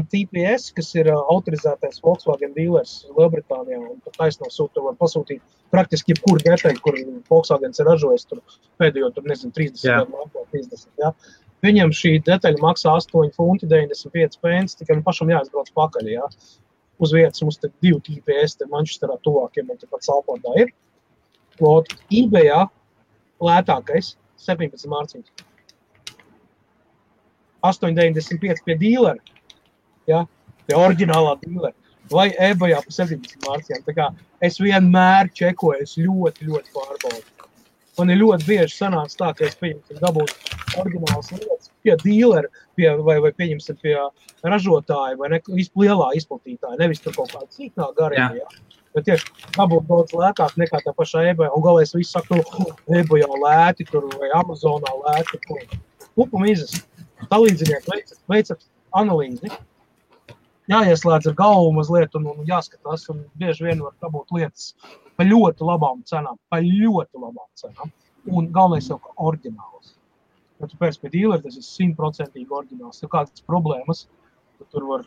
TPS, kas ir autorizētais Volkswagen dealers Lielbritānijā, un taisno sūta var pasūtīt praktiski jebkuru detaļu, kur Volkswagens ir ražojis tur pēdējo, 30 gadu, 30, jā. Viņam šī detaļa maksā 8,95 £, tikai pašam jāizbrauc pakaļ, jā. Uz vietas mums te 2 TPS, te Manchesterā tuvākiem, un te pat Salfordā ir. eBayā lētākais 17 mārciņas. 8,95 pie dīlera, ja, pie oriģinālā dīlera, vai eBayā pa 17 mārciņām. Tā kā es vienmēr čekoju, es ļoti pārbaudu. Man ir ļoti bieži sanāca tā, ka es dabūtu oriģinālas lietas pie dīlera, vai pieņemsim pie ražotāja, vai lielā izplatītāja, nevis tur kaut kāda cīknā garīgi, ja. Bet tieši dabūtu daudz lētāk nekā tā pašā eBayā, un galēs visu saku, eBayā lēti tur, vai Amazonā lēti, Pupu mizas. Talīdzinieki veicat analīzi, jāieslēdz ar galvu mazliet un jāskatās, un bieži vien var dabūt lietas pa ļoti labām cenām, un galvenais jau kā oriģināls. Ja tu pēc pie dīlera, tas ir 100% oriģināls, ja kādas problēmas, tad tur var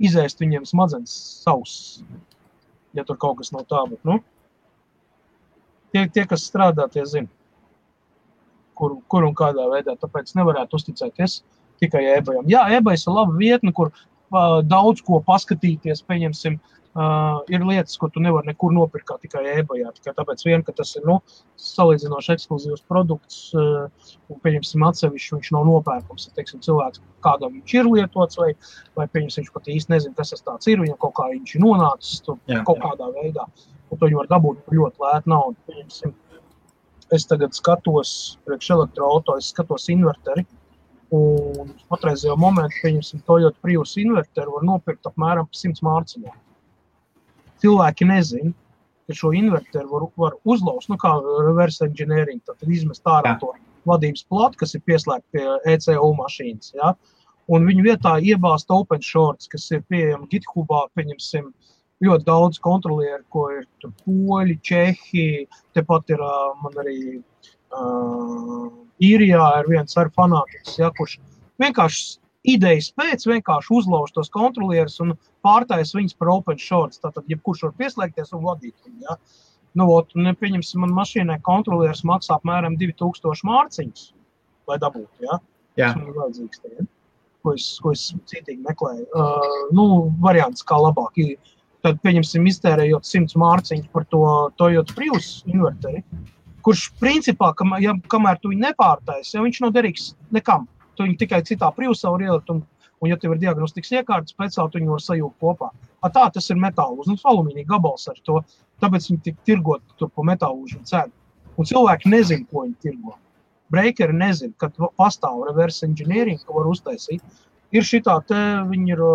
izēst viņiem smadzenes savs, ja tur kaut kas nav tā, bet, tie kas strādā, tie zina. Kur un kādā veidā, tāpēc nevarētu uzticēties tikai eBayam. Jā, eBays ir laba vietne, kur daudz ko paskatīties, pieņemsim, ir lietas, ko tu nevar nekur nopirkt kā tikai eBayā, tikai tāpēc vien, ka tas ir, salīdzinoši ekskluzīvs produkts, un pieņemsim atsevišķi, viņš nav nopērkums, teiksim, cilvēks, kādam viņš ir lietots, vai pieņemsim, viņš pat īsti nezin, kas tas tāds ir, viņam kaut kā viņš ir nonācis kaut kādā veidā, un to viņi var dabūt ļoti lētu naudu, pieņemsim. Es tagad skatos priekš elektroauto, es skatos inverteri, un patreizajā momentā, pieņemsim, Toyota Prius inverteri var nopirkt apmēram 100 mārciņā. Cilvēki nezin, ka šo inverteri var uzlaust, kā reverse engineering, tad izmest ārā to vadības platu, kas ir pieslēgta pie ECU mašīnas, ja? Un viņu vietā iebāzt open shorts, kas ir pieejami GitHubā, pieņemsim, ļoti daudz kontrolieri, ko ir tur poļi, čehi, tepat ir man arī Īrijā ir viens ar fanātiks, ja, kurš vienkārši idejas pēc vienkārši uzlauž tos kontrolierus un pārtais viņus par open shorts, tātad jebkurš var pieslēgties un vadīt viņu, ja. Pieņemsim, man mašīnai kontrolieris maksā apmēram 2000 mārciņas, lai dabūtu, ja. Tas man ir vajadzīgs te, ja. Ko es citīgi meklēju. Variants kā labāk ir. Tad, pieņemsim, iztērējot 100 mārciņas par to Toyota Prius inverteri, kurš principā, kamēr tu viņu nepārtais, ja viņš nav derīgs nekam. Tu viņu tikai citā Priusā var ielikt, un ja tev ir diagnostikas iekārtas, speciāli tu viņu var sajūgt kopā. Tā tas ir metālūžs, alumīnija gabals ar to, tāpēc viņi tik tirgot tur pa metālūžu cēdu. Un cilvēki nezin, ko viņi tirgo. Breakeri nezin, kad pastāv reverse engineering, ko var uztaisīt. Ir šitā te, viņi ir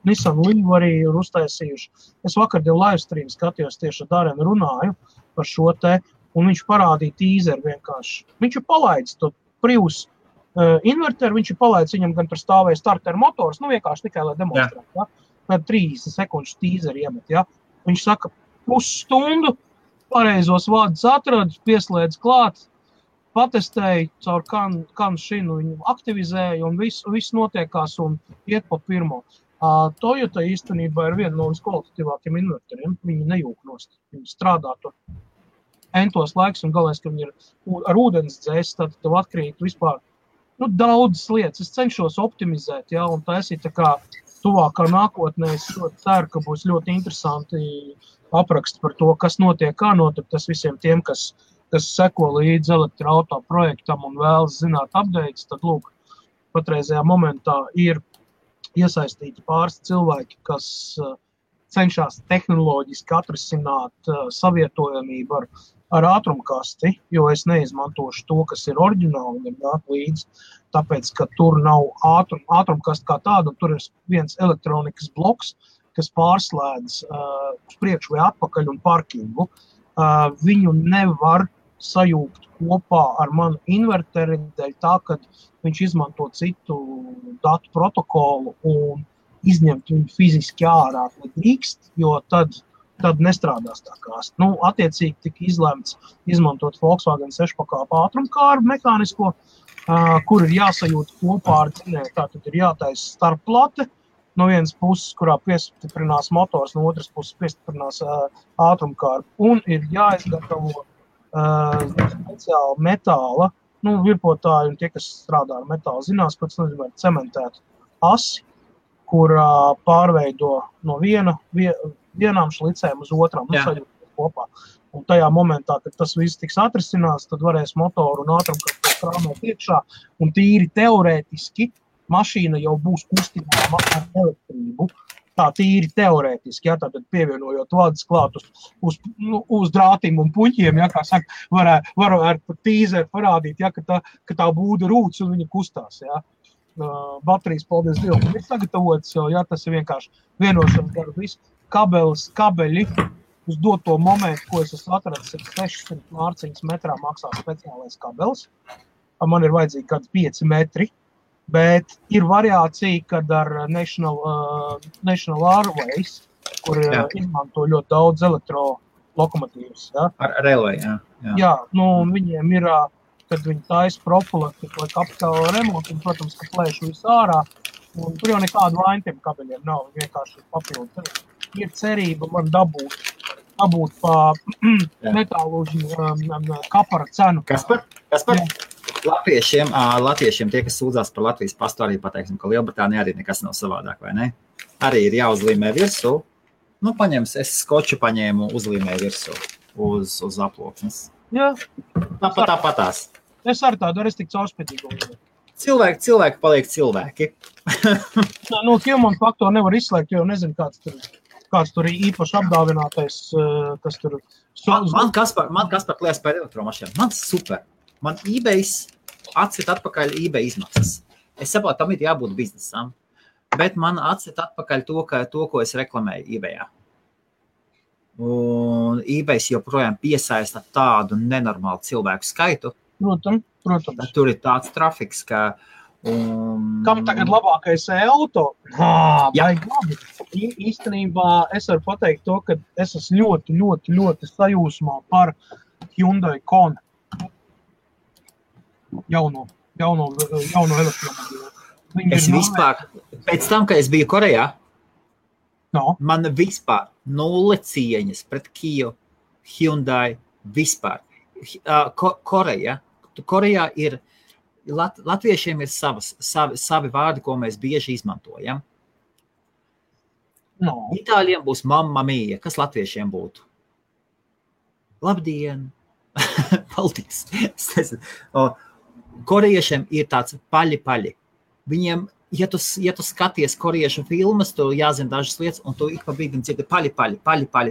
Nissan Leaf arī ir uztaisījuši. Es vakardien live stream skatījos tieši ar Darenu runāju par šo te, un viņš parādīja tīzeri vienkārši. Viņš ir palaidis to Prius inverteru, viņš ir palaidis viņam gan par stāvēju starter motors, vienkārši tikai, lai demonstrētu, ja? Tad 30 sekundžu tīzeri iemet, ja? Viņš saka, pusstundu, pareizos vārdus atradu, pieslēdz klāt, patestēju caur kan šinu, viņu aktivizēju, un viss notiekās un iet pa pirmo. Toyota īstenībā ir viena no viskvalitatīvākiem inverteriem. Viņi nejūk nost. Viņi strādā tur entos laiks un galvenais, ka viņi ir ar ūdens dzēs, tad tev atkrīt vispār Daudzas lietas. Es cenšos optimizēt, ja, un taisīt tā kā tuvākā nākotnē. Es ļoti ceru, ka būs ļoti interesanti apraksti par to, kas notiek, kā notiek. Tas visiem tiem, kas seko līdz elektroauto projektam un vēlas zināt updates, tad, lūk, patreizajā momentā ir iesaistīti pāris cilvēki, kas cenšas tehnoloģiski atrisināt savietojamību ar ātrumkasti, jo es neizmantošu to, kas ir oriģināli un ir nāk līdzi, tāpēc, ka tur nav ātrumkasta kā tāda, un tur ir viens elektronikas bloks, kas pārslēdz uz priekšu vai atpakaļ un parkingu. Viņu nevar sajūgt kopā ar manu inverteri, dēļ tā, ka viņš izmanto citu datu protokolu un izņemt viņu fiziski ārā nedrīkst, jo tad nestrādās tā kāst. Attiecīgi tika izlemts izmantot Volkswagen 6-pakāpu ātrumkāru mehānisko, kur ir jāsajūt kopā ar dzinēju. Tātad ir jātaisa starpplate, no vienas puses, kurā piestiprinās motors, no otras puses piestiprinās ātrumkāru, un ir jāizgatavo speciāli metāla, virpotāji un tie, kas strādā ar metālu, zinās, ko tas nozīmē cementēt asi, kurā pārveido no vienām šlicēm uz otrām, sajūt kopā. Un tajā momentā, kad tas viss tiks atrisinās, tad varēs motoru un ātrumkārtu krāmēt iekšā, un tīri teorētiski mašīna jau būs kustībā ar elektrību. Tā tīri teorētiski, ja, tātad pievienojot vadus klāt uz drātīm un puņķiem, ja, kā saka, varētu pat tīzēt parādīt, ja, ka tā būda rūc un viņa kustās, ja. Baterijas, paldies Dievam, ir sagatavots, ja, tas ir vienkārši vienošanas garu visu. Kabeļi uz doto momentu, ko es esmu atradis, ir 600 mārciņas metrā maksā speciālais kabelis. Man ir vajadzīgi kādi 5 metri. Bet ir variācija, kad ar National Airways, kur izmanto ļoti daudz elektrolokomotīvas. Ja? Ar Railway, jā. Jā, viņiem ir, kad viņi taisa profilaktiku vai kapitāla remontu, un, protams, ka plēš visu ārā, un tur jau nekādu vainu tiem kabeļiem nav, vienkārši papildu. Ir cerība man dabūt pa metālužu kapara cenu. Kaspar? Latviešiem tie, kas sūdzās par Latvijas pastu, arī pateiksim, ka Lielbritānija arī nekas nav savādāk, vai ne? Arī ir jāuzlīmē virsū. Es skoču paņēmu uzlīmē virsū uz aploksnes. Jā. Tāpatās. Es ar tādu arī tik caurspētīgu. Cilvēki paliek cilvēki. Human faktoru nevar izslēgt, jo nezinu, kāds tur ir īpaši apdāvinātais, kas tur... Man Kaspar kliekas par elektromašīnām. Man super. Man eBays atsit atpakaļ eBay izmaksas. Es saprotu, tam ir jābūt biznesam, bet man atsit atpakaļ to, ko es reklamēju eBayā. Un eBays joprojām piesaista tādu nenormālu cilvēku skaitu. Protams. Tur ir tāds trafiks, ka... Kam tagad labākais auto? Īstenībā es varu pateikt to, ka es esmu ļoti sajūsmā par Hyundai Kona. Jauno elektromobīlu. Es vispār, pēc tam, kad es biju Korejā, man vispār nulle cieņas pret Kia, Hyundai, vispār. Korejā ir, latviešiem ir savi vārdi, ko mēs bieži izmantojam. Itāļiem būs mamma mia, kas latviešiem būtu? Labdien! Paldies! Korejiešiem ir tāds paļi. Viņiem, ja tu skaties koriešu filmas, tu jāzina dažas lietas, un tu ik pa brīdim dzirdi paļi.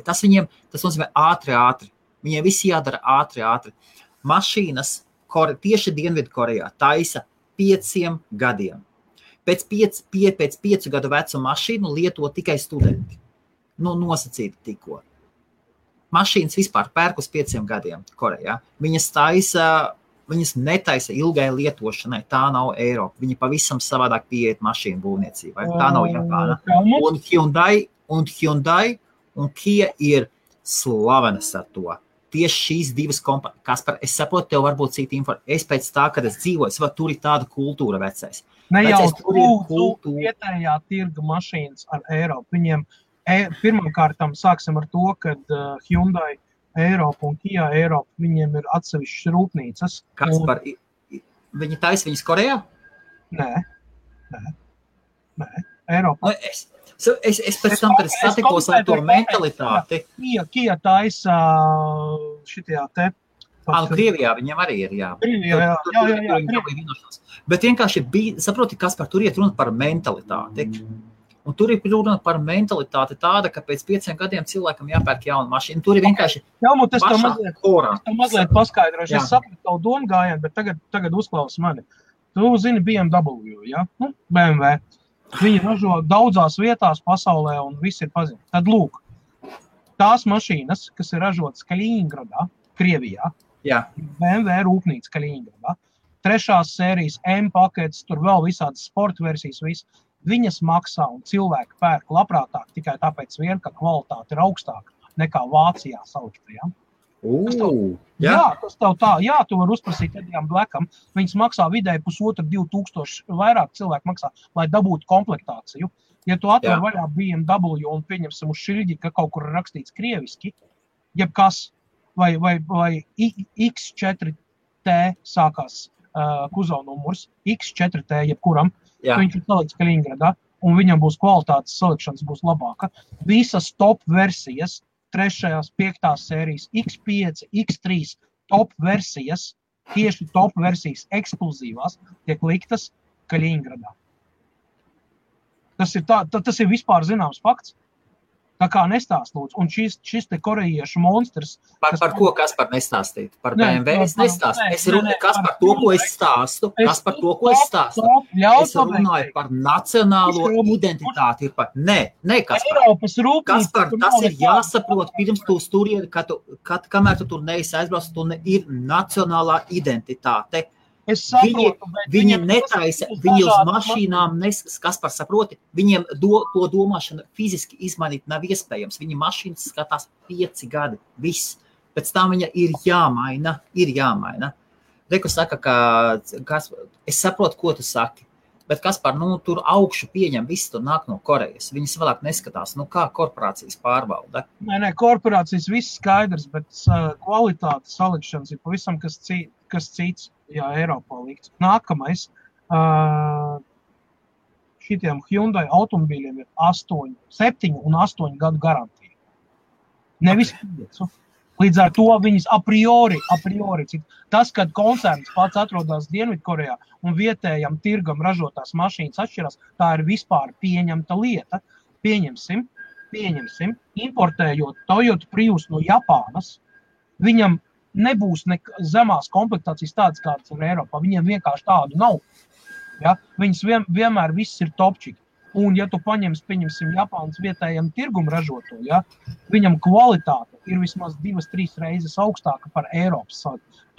Tas nozīmē ātri. Viņiem visi jādara ātri. Mašīnas tieši Dienvidu Korejā taisa 5 gadiem. Pēc 5 gadu vecu mašīnu lieto tikai studenti. Nosacīti tikko. Mašīnas vispār pērk uz 5 gadiem Korejā. Viņas netaisa ilgai lietošanai, tā nav Eiropa. Viņi pavisam savādāk pieiet mašīnu būvniecībai. Tā nav Japāna. Un Hyundai un Kia ir slavenas ar to. Tieši šīs divas kompānijas. Kaspar, es saprotu, tev varbūt cita informācija. Es pēc tā, kad es dzīvoju, tur ir tāda kultūra vecais. Ne jau tu vietējā tirga mašīnas ar Eiropu. Viņiem pirmkārtām sāksim ar to, kad Hyundai Eiropa un Kia Eiropa, viņiem ir atsevišķas rūpnīcas. Kaspar, viņi taisa viņas Korejā? Nē. Eiropā. Es pēc tam, kad es satikos ar to mentalitāti. Kia taisa šitajā te. Krievijā viņam arī ir, jā. Jā. Bet vienkārši bija, saproti, kas par tur iet runa par mentalitāti. Un tur ir runa par mentalitāti tāda, ka pēc 5 gadiem cilvēkam jāpērk jauna mašīna. Tur ir vienkārši es to mazliet paskaidrošu. Es sapratu tavu domu gājienu, bet tagad uzklaus mani. Tu zini BMW, ja? BMW. Viņi ražo daudzās vietās pasaulē un viss ir pazīstams. Tad lūk, tās mašīnas, kas ir ražotas Kaļiņgradā, Krievijā, BMW rūpnīca Kaļiņgradā, 3. sērijas M paketes, tur vēl visādas sporta versijas, viss, viņas maksā un cilvēki pērk labprātāk tikai tāpēc vien, ka kvalitāte ir augstāka nekā Vācijā saliktajām. Tas tev tā, tu vari uzprasīt Edijam Blackam, viņas maksā vidēji 1,5–2,000 vairāk cilvēku maksā, lai dabūtu komplektāciju. Ja tu atver vaļā BMW un pieņemsim uz šilģi, ka kaut kur rakstīts krieviski, jebkas, vai X4T sākās kuzova numurs, X4T jebkuram, viņš ir salikts Kaļiņgradā, un viņam būs kvalitātes salikšanas būs labāka. Visas top versijas, 3., 5. sērijas, X5, X3 top versijas, tieši top versijas ekskluzīvās, tiek liktas Kaļiņgradā. Tas ir vispār zināms fakts. Tā kā nestāst, lūdzu. Un šis te korejiešu monstrs... Par ko Kaspar nestāstīt? Par BMW es nestāstu. Es runāju, kas par to, ko es stāstu. Kas par to, ko es stāstu. Es runāju par nacionālo identitāti. Nē, Kaspar. Kaspar, tas ir jāsaprot pirms tu sturieni, kamēr tu tur neesi aizbrauc, tu ir nacionālā identitāte. Es saprotu, viņi netaisa, viņi uz mašīnām Kaspar saproti, viņiem to domāšanu fiziski izmainīt nav iespējams. Viņi mašīnas skatās 5 gadi, viss. Pēc tam viņa ir jāmaina. Reku saka, ka es saprotu, ko tu saki, bet Kaspar, tur augšu pieņem, viss tur nāk no Korejas. Viņas vēlāk neskatās, kā korporācijas pārvalda. Nē, korporācijas viss skaidrs, bet kvalitāte salikšanas ir pavisam kas cits. Jā, Eiropā likts. Nākamais, šitiem Hyundai automobīļiem ir 7 un 8 gadu garantija. Nevis 5. Līdz ar to viņas a priori. Tas, kad koncerns pats atrodas Dienvidkorejā un vietējam tirgam ražotās mašīnas atšķirās, tā ir vispār pieņemta lieta. Pieņemsim, importējot Toyota Prius no Japānas, viņam nebūs zemās komplektācijas tādas, kādas ir Eiropā. Viņiem vienkārši tādu nav. Ja? Viņas vienmēr viss ir topčiki. Un, ja tu pieņemsim Japānas vietējiem tirgumu ražoto, ja? Viņam kvalitāte ir vismaz 2-3 reizes augstāka par Eiropas.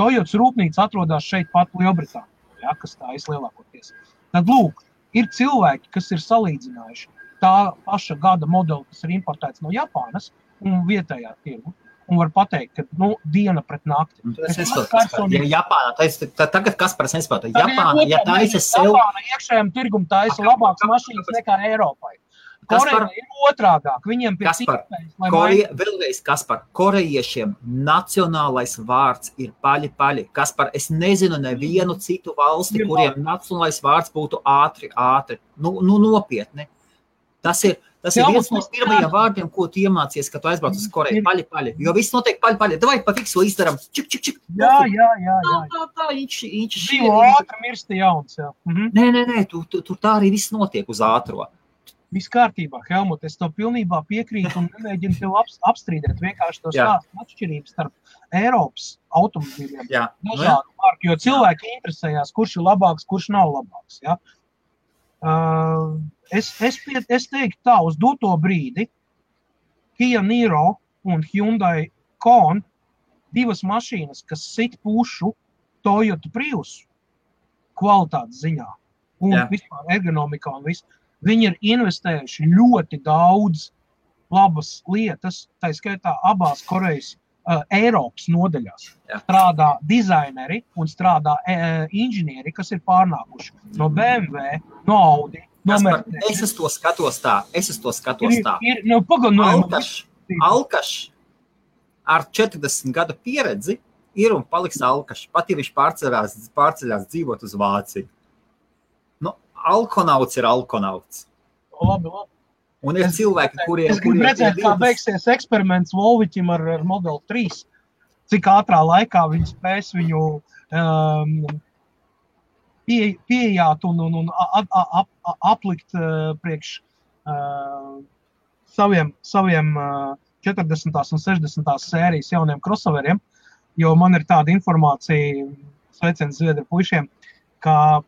Toyotas rūpnīca atrodas šeit pat Lielbritānijā, ja? Kas tā ir lielākoties. Tad, lūk, ir cilvēki, kas ir salīdzinājuši tā paša gada modeli, kas ir importēts no Japānas un vietējā tirgu. Un var pateikt, ka diena pret nakti. Es nesaprotu, ja Japāna, tagad Kaspars nesaprotu. Japāna, ja taisa sev... Japāna iekšējiem tirgum taisa labākas mašīnas nekā Eiropai. Koreja ir otrādāk. Viņiem pie vēlreiz, Kaspar, korejiešiem nacionālais vārds ir paļi. Kaspar, es nezinu nevienu citu valsti, kuriem nacionālais vārds būtu ātri. Nopietni. Tas ir viens no pirmajiem vārdiem, ko tu iemācies, kad tu aizbrauc uz Koreju. Paļi. Jo viss notiek paļi. Davai pa fiksu izdaram. Čik. Jā. Tā, inči. Dzīvo ātri, mirsti jauns, jā. Nē, tur tā arī viss notiek uz ātro. Viss kārtībā, Helmut, es tev pilnībā piekrītu un nemēģinu tev apstrīdēt. Vienkārši to stāstu atšķirības starp Eiropas automobīļiem. Dažādu marku, jo cilvēki interesējās, kurš ir labāks, kurš nav labāks, jā. Es teiktu tā, uz doto brīdi Kia Niro un Hyundai Kona, 2 mašīnas, kas sit pušu Toyota Prius kvalitātes ziņā un vispār ergonomikā un viss. Viņi ir investējuši ļoti daudz labas lietas, tā skaitā abās Korejas Eiropas nodaļās. Strādā dizaineri un strādā inženieri, kas ir pārnākuši no BMW, no Audi, no Mercedes. Es uz to skatos tā. Alkašs ar 40 gadu pieredzi ir un paliks alkašs. Pat ja viņš pārceļās dzīvot uz Vāciju. alkonauts ir alkonauts. Labi. Un ir cilvēki, kuriem... Es gribu redzēt, kā beigsies eksperiments Volviķim ar Model 3. Cik ātrā laikā viņi spēs viņu pieejāt un aplikt priekš saviem 40. un 60. sērijas jauniem crossoveriem, jo man ir tāda informācija, sveiciens Zviedru puišiem, ka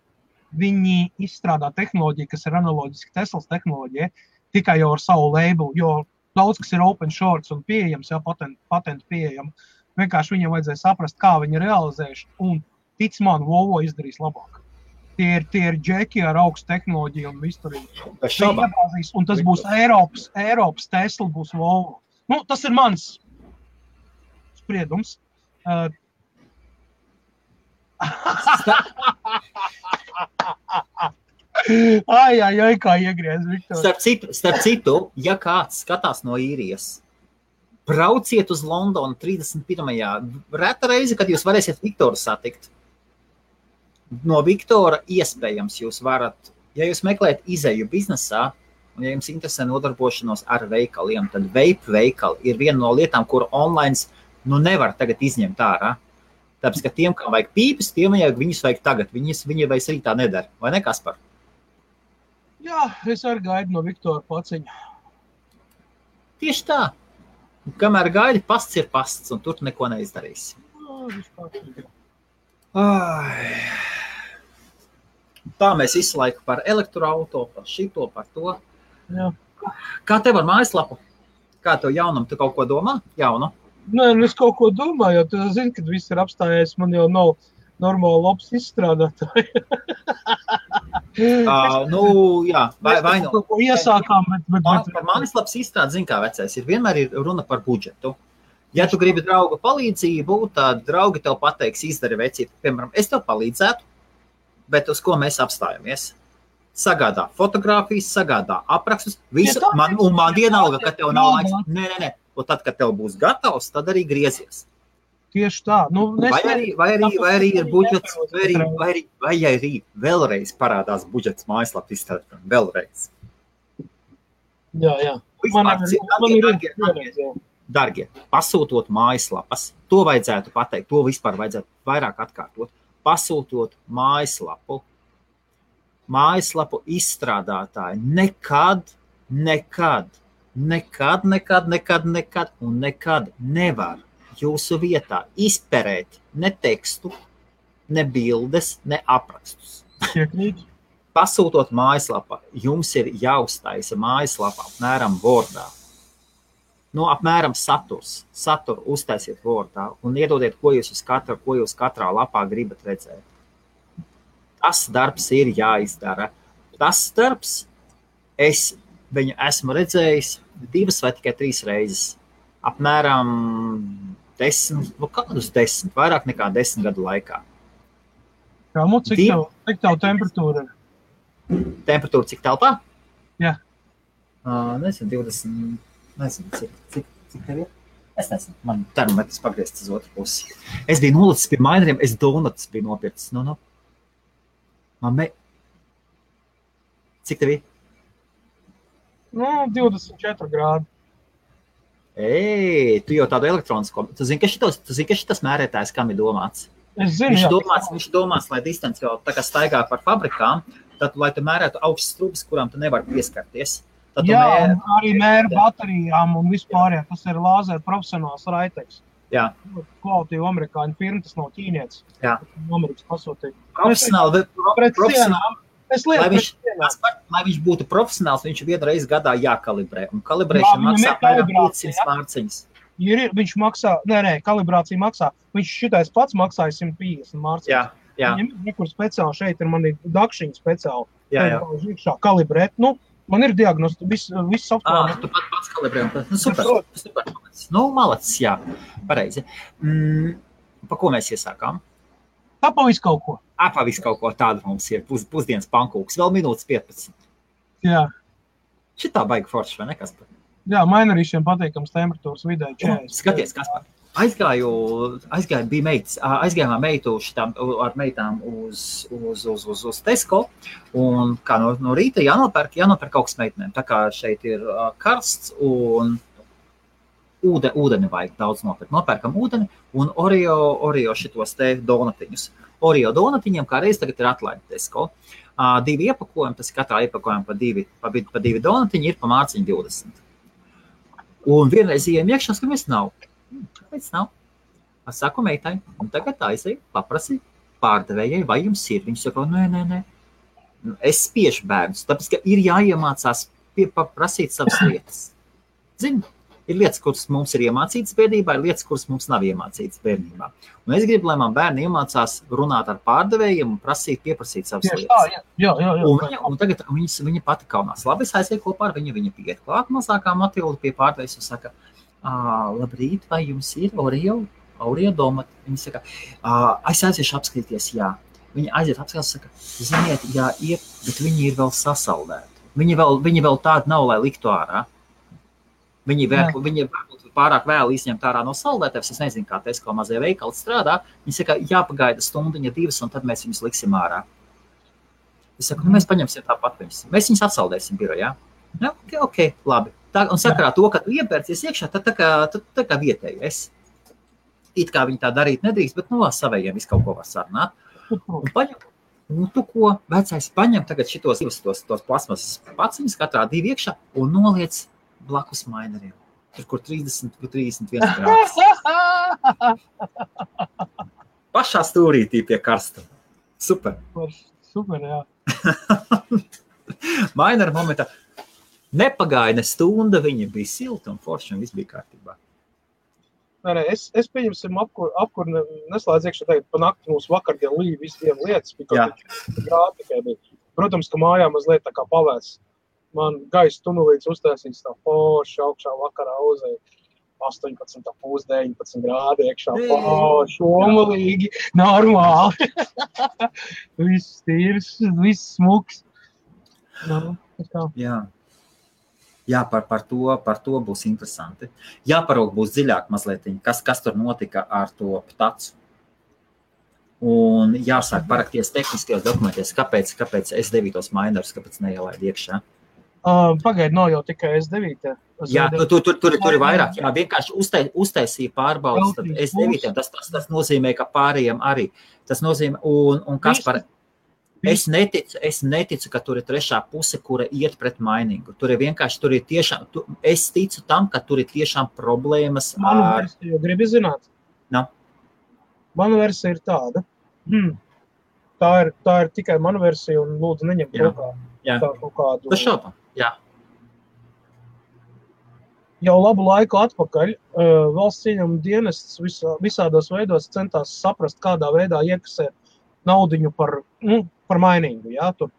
viņi izstrādā tehnoloģiju, kas ir analoģiski Teslas tehnoloģija, tikai jau ar savu labelu, jo daudz, kas ir open source un pieejams, jau patentu pieejam, vienkārši viņam vajadzēja saprast, kā viņi realizējuši, un tic man, Volvo izdarīs labāk. Tie ir džeki ar augstu tehnoloģiju un visturīgi. Un tas būs Eiropas Tesla, būs Volvo. Nu, tas ir mans spriedums. Ai, kā iegriez, Viktor. Starp citu, ja kāds skatās no īrijas, brauciet uz Londonu 31. Reta reize, kad jūs varēsiet Viktoru satikt. No Viktora iespējams jūs varat, ja jūs meklējat izeju biznesā, un ja jums interesē nodarbošanos ar veikaliem, tad vape veikali ir viena no lietām, kuru online nevar tagad izņemt ārā. Tāpēc, ka tiem, kam vajag pīpes, viņus vajag tagad. Viņi vairs arī tā nedara. Vai ne, Kaspar? Jā, es arī gaidu no Viktora paciņa. Tieši tā. Kamēr gaidi, pasts ir pasts, un tur neko neizdarīsi. Tā mēs visu laiku par elektroauto, par šito, par to. Jā. Kā tev ar mājaslapu? Kā tev jaunam? Tu kaut ko domā? Jaunu? Nē, es kaut ko domāju, jo tu zini, kad viss ir apstājies, man jau nav normāli labs izstrādātāji. Jā, vai nu. Kaut ko iesākām, bet par mājaslapas izstrādi, zini kā vecais, vienmēr ir runa par budžetu. Ja tu gribi drauga palīdzību, tad draugi tev pateiks, izdari vecīt. Piemēram, es tev palīdzētu, bet uz ko mēs apstājamies? Sagādā fotogrāfijas, sagādā aprakstus, visu, man vienalga, ka tev nav laiks. Nē. Un tad, kad tev būs gatavs, tad arī griezies. Tieši tā. Vai arī ir budžets, vai arī vēlreiz parādās budžets mājaslapu izstrādāt. Vēlreiz. Jā. Dargie, pasūtot mājaslapas, to vajadzētu pateikt, to vispār vajadzētu vairāk atkārtot. Pasūtot mājaslapu izstrādātāji nekad un nekad nevar jūsu vietā izperēt ne tekstu, ne bildes, ne aprakstus. Pasūtot mājaslapā, jums ir jāuztaisa mājaslapā apmēram Wordā. Apmēram saturu uztaisiet Wordā un iedodiet, ko jūs katrā lapā gribat redzēt. Tas darbs ir jāizdara. Tas darbs viņu esmu redzējis 2 vai tikai 3 reizes. Apmēram 10, kādus 10, vairāk nekā 10 gadu laikā. Cik tev temperatūra ir? Temperatūra cik telpā? Jā. Nezinu, 20, nezinu, cik tev ir? Es nezinu, man termometrs pagriezts uz otru pusi. Es biju nolicis pie maineriem, es donuts biju nopircis. Cik tev ir? 24 grādi. Tu jau tādu elektronisko. Tu zini, ka šitas mērētājs kam ir domāts? Es zinu, viņš domāts, lai distance jau tā kā staigā par fabrikām, tad, lai tu mērētu augstas trubas, kurām tu nevari pieskarties. Arī mēra baterijām un vispār, tas ir lāzera profesionāls raiteks. Jā. Kvalitīva amerikāņu firma, tas nav ķīnietis. Jā. Amerikas pasūtīja. Profesionāli. Lai viņš būtu profesionāls, viņš vienu reizi gadā jākalibrē. Un kalibrēšana maksā apmēram 500 mārciņas. Viņš maksā, kalibrācija maksā. Viņš šitais pats maksāja 150 mārciņas. Jā. Viņam ir nekur speciāli šeit, ir mani dakšiņi speciāli. Jā. Kalibrēt. Man ir diagnosti, viss software. Tu pats kalibrē. Super. Malacis, jā. Pareizi. Pa ko mēs iesākām? Pavis kaut ko. Pavis kaut ko tādu mums ir. Pusdienas pankūks. Vēl minūtes 15. Jā. Šitā baigi forši, vai ne, Kaspar? Jā, mainerīšiem patīkams temperatūras vidē 40. Skaties, Kaspar. Aizgājām meitu ar meitām uz Tesco, un kā no rīta jānopērk kaut kas meitenēm. Tā kā šeit ir karsts un ūdeni vajag daudz nopirkt. Nopērkam ūdeni un Oreo šitos te donatiņus. Oreo donatiņiem kā reiz tagad ir atlaidi Tesco. 2 iepakojumi, tas katrā iepakojumā pa 2 donatiņi ir pa mārciņu 20. Un vienreiz ejam iekšā, skamies nav. Kāpēc nav? Es saku meitai, un tagad aizēju, paprasi pārdevējai, vai jums ir. Viņš saka, nē. Es spiešu bērnus, tāpēc, ka ir jāiemācās prasīt savas lietas. Zini, ir lietas, kuras mums ir iemācītas bērnībā, ir lietas, kuras mums nav iemācītas bērnībā. Un es gribu, lai man bērni iemācās runāt ar pārdevējiem un pieprasīt savas lietas. Jā. Un tagad viņa pati kaunās. Labi, es aizēju kopā ar viņu, viņa pieiet klāt mazākā Matilda pie pārdevējas un saka, labrīt, vai jums ir Oreo domati? Viņa saka, es aiziešu apskatīties, jā. Viņa aiziet apskatīties, saka, ziniet, jā, bet viņi ir vēl sasaldēti. Viņi vēl tādi nav, lai liktu ārā. Viņi pārāk vēl izņemt ārā no saldētēs. Es nezinu, kā Tesco mazie veikali strādā. Viņi saka, jāpagaida stundiņa 2, un tad mēs viņus liksim ārā. Es saku, mēs paņemsim tāpat viņus. Mēs viņus atsaldēsim birojā. Ja, ok, labi. Un sakarā to, ka tu iepērcies iekšā, tad tā kā vietēji esi. It kā viņi tā darīt nedrīkst, bet savējiem visu kaut ko var sarunāt. Un paņem, tu ko, vecais, paņem tagad šitos tos plasmasas paciņus, katrā 2 iekšā, un noliec blakus maineriem. Tur, kur 31 grādus. Pašā stūrītī pie karstuma. Super. Super, jā. Mainera momentā. Nepagāja ne stunda, viņa bija silta un forša un viss bija kārtībā. Nē, es pieņemsim apkur neslēdz iekšā tagad pa nakti mūsu vakardien līja visiem lietas, bija grādi tikai bija. Protams, ka mājā mazliet tā kā pavēs. Man gaisa tunelīts uztaisīts tā forši augšā vakarā uzēja 18,5–19 grādi iekšā. Forši, omalīgi, normāli. Viss tīrs, viss smuks. Jā, par to būs interesanti. Jāparaug būs dziļāk mazliet, kas tur notika ar to ptacu. Un jāsāk parakties tehniskajos dokumentos, kāpēc S9 mainers, kāpēc neielaid iekšā. Pagaid, nav jau tikai S9. Jā, tur ir vairāk. Jā, vienkārši uztaisīja pārbaudas, tad S9, tas nozīmē, ka pārējiem arī. Tas nozīmē, un kas par... Es neticu, ka tur ir trešā puse, kura iet pret mainingu. Tur ir tiešām, es ticu tam, ka tur ir tiešām problēmas ar... Manu versiju, gribi zināt? No. Manu versija ir tāda. Tā ir tikai manu versija un lūdzu neņemt rokā. Jā. Tas šaubā, jā. Jau labu laiku atpakaļ valsts ieņēmuma dienests visādos veidos centās saprast, kādā veidā iekasēt naudiņu par mainingu. Ja? Tur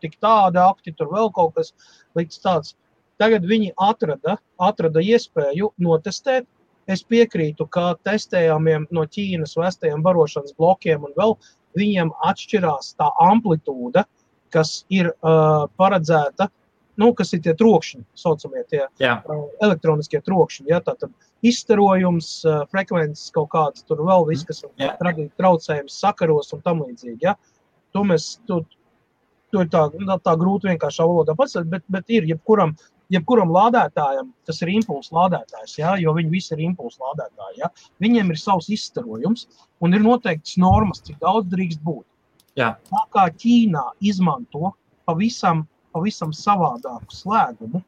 tik tādi akti, tur vēl kaut kas likts tāds. Tagad viņi atrada iespēju notestēt. Es piekrītu, ka testējumiem no Ķīnas vestajiem barošanas blokiem un vēl viņiem atšķirās tā amplitūda, kas ir paredzēta, kas ir tie trokšņi, saucamie tie elektroniskie trokšņi. Ja? Tātad izstarojums, frekvences kaut kāds, tur vēl viss, kas radīt traucējums sakaros un tam līdzīgi. Ja? To ir tā grūti vienkāršā valodā pats, bet ir jebkuram lādētājam, tas ir impulsu lādētājs, ja? Jo viņi visi ir impulsu lādētāji. Ja? Viņiem ir savs izstarojums un ir noteikts normas, cik daudz drīkst būt. Jā. Tā kā Ķīnā izmanto pavisam savādāku slēgumu.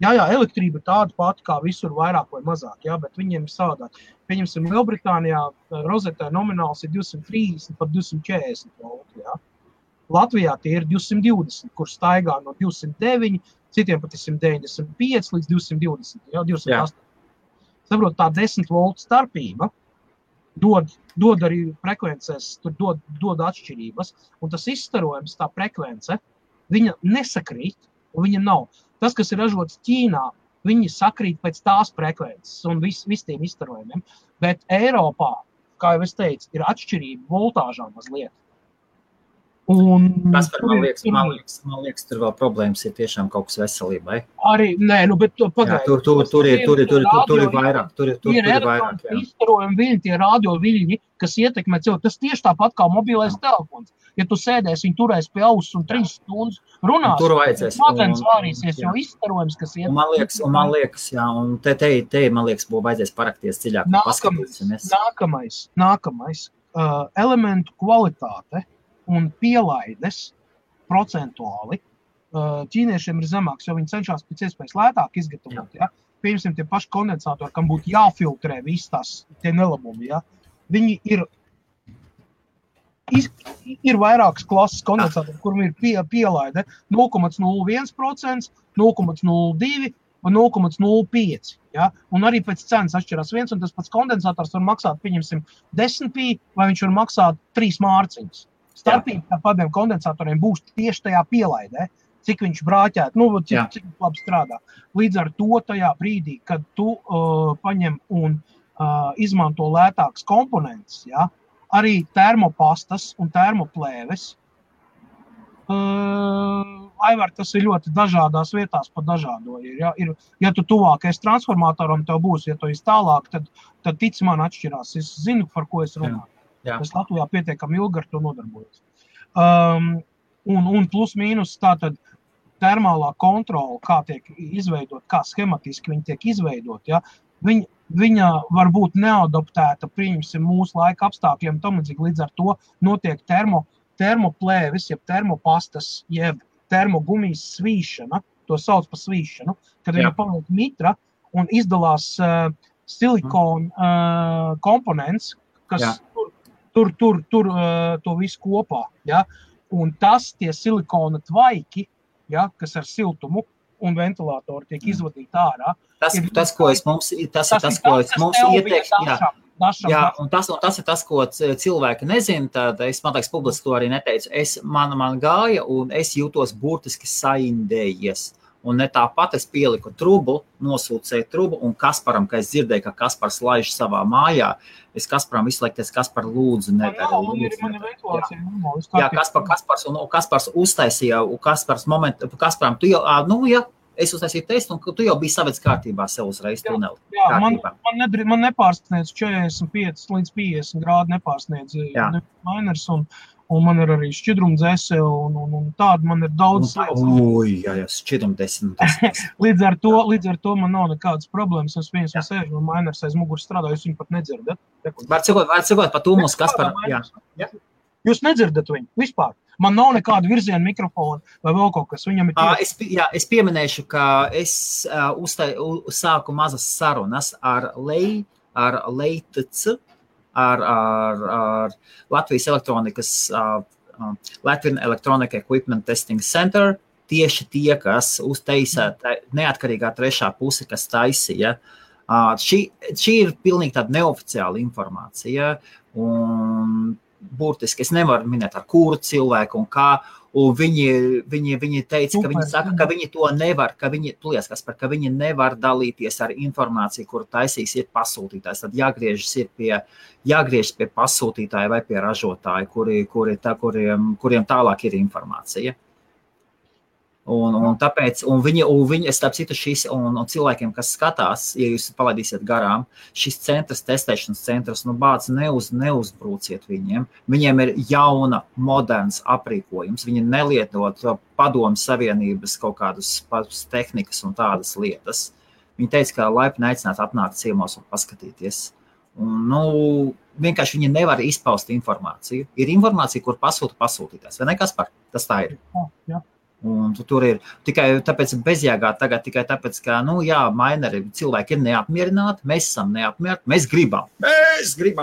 Jā, elektrība tāda pati kā visur vairāk vai mazāk, jā, bet viņiem ir savādāk. Pieņemsim, Lielbritānijā rozetē nomināls ir 230 pat 240 volti, jā. Latvijā tie ir 220, kur staigā no 209, citiem pat ir 195 līdz 220, jā, 208. Saprot, tā 10 voltu starpība dod arī frekvencēs, tur dod atšķirības, un tas izstarojums, tā frekvence, viņa nesakrīt, un viņa nav. Tas, kas ir ražots Ķīnā, viņi sakrīt pēc tās frekvences un vis tiem izstarojumiem, bet Eiropā, kā jau es teicu, ir atšķirība voltāžā mazliet. Kaspar, man liekas, tur vēl problēmas ir tiešām kaut kas veselībai. Arī, nē, bet pagaidi. Tur ir vairāk. Tur ir vairāk, jā. Izstarojumi viļņi, tie radio viļņi, kas ietekmē cilvēku. Tas tieši tāpat kā mobilais telefons. Ja tu sēdēsi, viņi turēs pie auss un 3 stundas runās, tur vajadzēs. Smadzenes vārīsies, jo izstarojums, kas ietekmē. Man liekas, jā, un te man liekas, būtu vajadzēs parakties dziļāk. Nākamais. Elementu kvalitāte un pielaides procentuāli ķīniešiem ir zemāks, jo viņi cenšas pēc iespējas lētāk izgatavot. Ja? Piemēram, tie paši kondensatori, kam būtu jāfiltrē visas tie nelabumi. Ja? Viņi ir vairākas klases kondensatori, kuram ir pielaide 0,01%, 0,02% un 0,05%. Ja? Un arī pēc cenas atšķirās viens, un tas pats kondensators var maksāt, pieņemsim, 10 pī, vai viņš var maksāt 3 mārciņas. Starpība tādiem kondensatoriem būs tieši tajā pielaidē, cik viņš brāķēt, cik labi strādā. Līdz ar to tajā brīdī, kad tu paņem un izmanto lētāks komponents, ja, arī termopastas un termoplēves, Aivar, tas ir ļoti dažādās vietās pa dažādo. Ja tu tuvākais transformatoram tev būs, ja tu esi tālāk, tad tic man atšķirās. Es zinu, par ko es runāju. Es Latvijā pietiekami ilgi ar to nodarbojos. Un plus mīnus tātad termālā kontrola, kā tiek izveidot, kā schematiski viņi tiek izveidot, ja, viņa var būt neadaptēta, pieņemsim, mūsu laika apstākļiem, līdz ar to notiek termoplēvis, jeb termopastas, jeb termogumijas svīšana, to sauc par svīšanu, kad viņa paliek mitra un izdalās silikona komponents, kas tur to visu kopā, ja? Un tie silikona tvaiki, ja, kas ar siltumu un ventilātoru tiek izvadīti ārā. Tas ir tas, ko es mums ieteiktu. Jā, un tas ir tas, ko cilvēki nezina, tad es, man liekas, publiski to arī neteicu. Man gāja un es jūtos burtiski saindējies. Un ne tāpat es pieliku trubu, nosūcēju trubu, un Kasparam, ka es dzirdēju, ka Kaspars laiž savā mājā, es Kasparam izslēgties, Kaspar lūdzu nedara. Jā, Kaspars uztaisīja, Kasparam, tu jau, es uztaisīju testu, un tu jau biji savedis kārtībā sev uzreiz tuneli. Jā, man nepārsniedz 45 līdz 50 grādi nepārsniedz mainers, un man ir arī šķidrumdzese, un tāda man ir daudz lietas. Jā, šķidrumdzese. Līdz ar to man nav nekādas problēmas. Es viens no sēžu, un mainers aiz muguras strādā, jūs viņu pat nedzirdat. Var cikot par tūmus, Kaspar. Jūs nedzirdat viņu vispār. Man nav nekāda virziena mikrofona vai vēl kaut kas. Viņam ir es pieminēšu, ka es sāku mazas sarunas ar Leitc, ar Latvijas elektronikas, Latvian Electronic Equipment Testing Center, tieši tie, kas uztaisā neatkarīgā trešā puse, kas taisīja. Šī ir pilnīgi tāda neoficiāla informācija, un burtiski es nevaru minēt ar kuru cilvēku un kā, un viņi teica, ka viņi saka, ka viņi to nevar, ka viņi nevar dalīties ar informāciju, kuru taisīs ir pasūtītājs. Tad jāgriežas pie pasūtītāja vai pie ražotāja, kuriem tālāk ir informācija. Un tāpēc, viņi, starp citu, un cilvēkiem, kas skatās, ja jūs palaidīsiet garām, šis testēšanas centrs, bāc, neuzbrūciet viņiem. Viņiem ir jauna, moderns aprīkojums. Viņi nelietot padomu savienības kaut kādus tehnikas un tādas lietas. Viņi teica, ka laipni aicināt atnākt ciemos un paskatīties. Vienkārši viņi nevar izpaust informāciju. Ir informācija, kur pasūtītājs. Vai ne, Kaspar? Tas tā ir. Jā. Un tur ir tikai tāpēc bezjēgā tagad, tikai tāpēc, ka, maineri cilvēki ir neapmierināti, mēs esam neapmierināti, mēs gribam,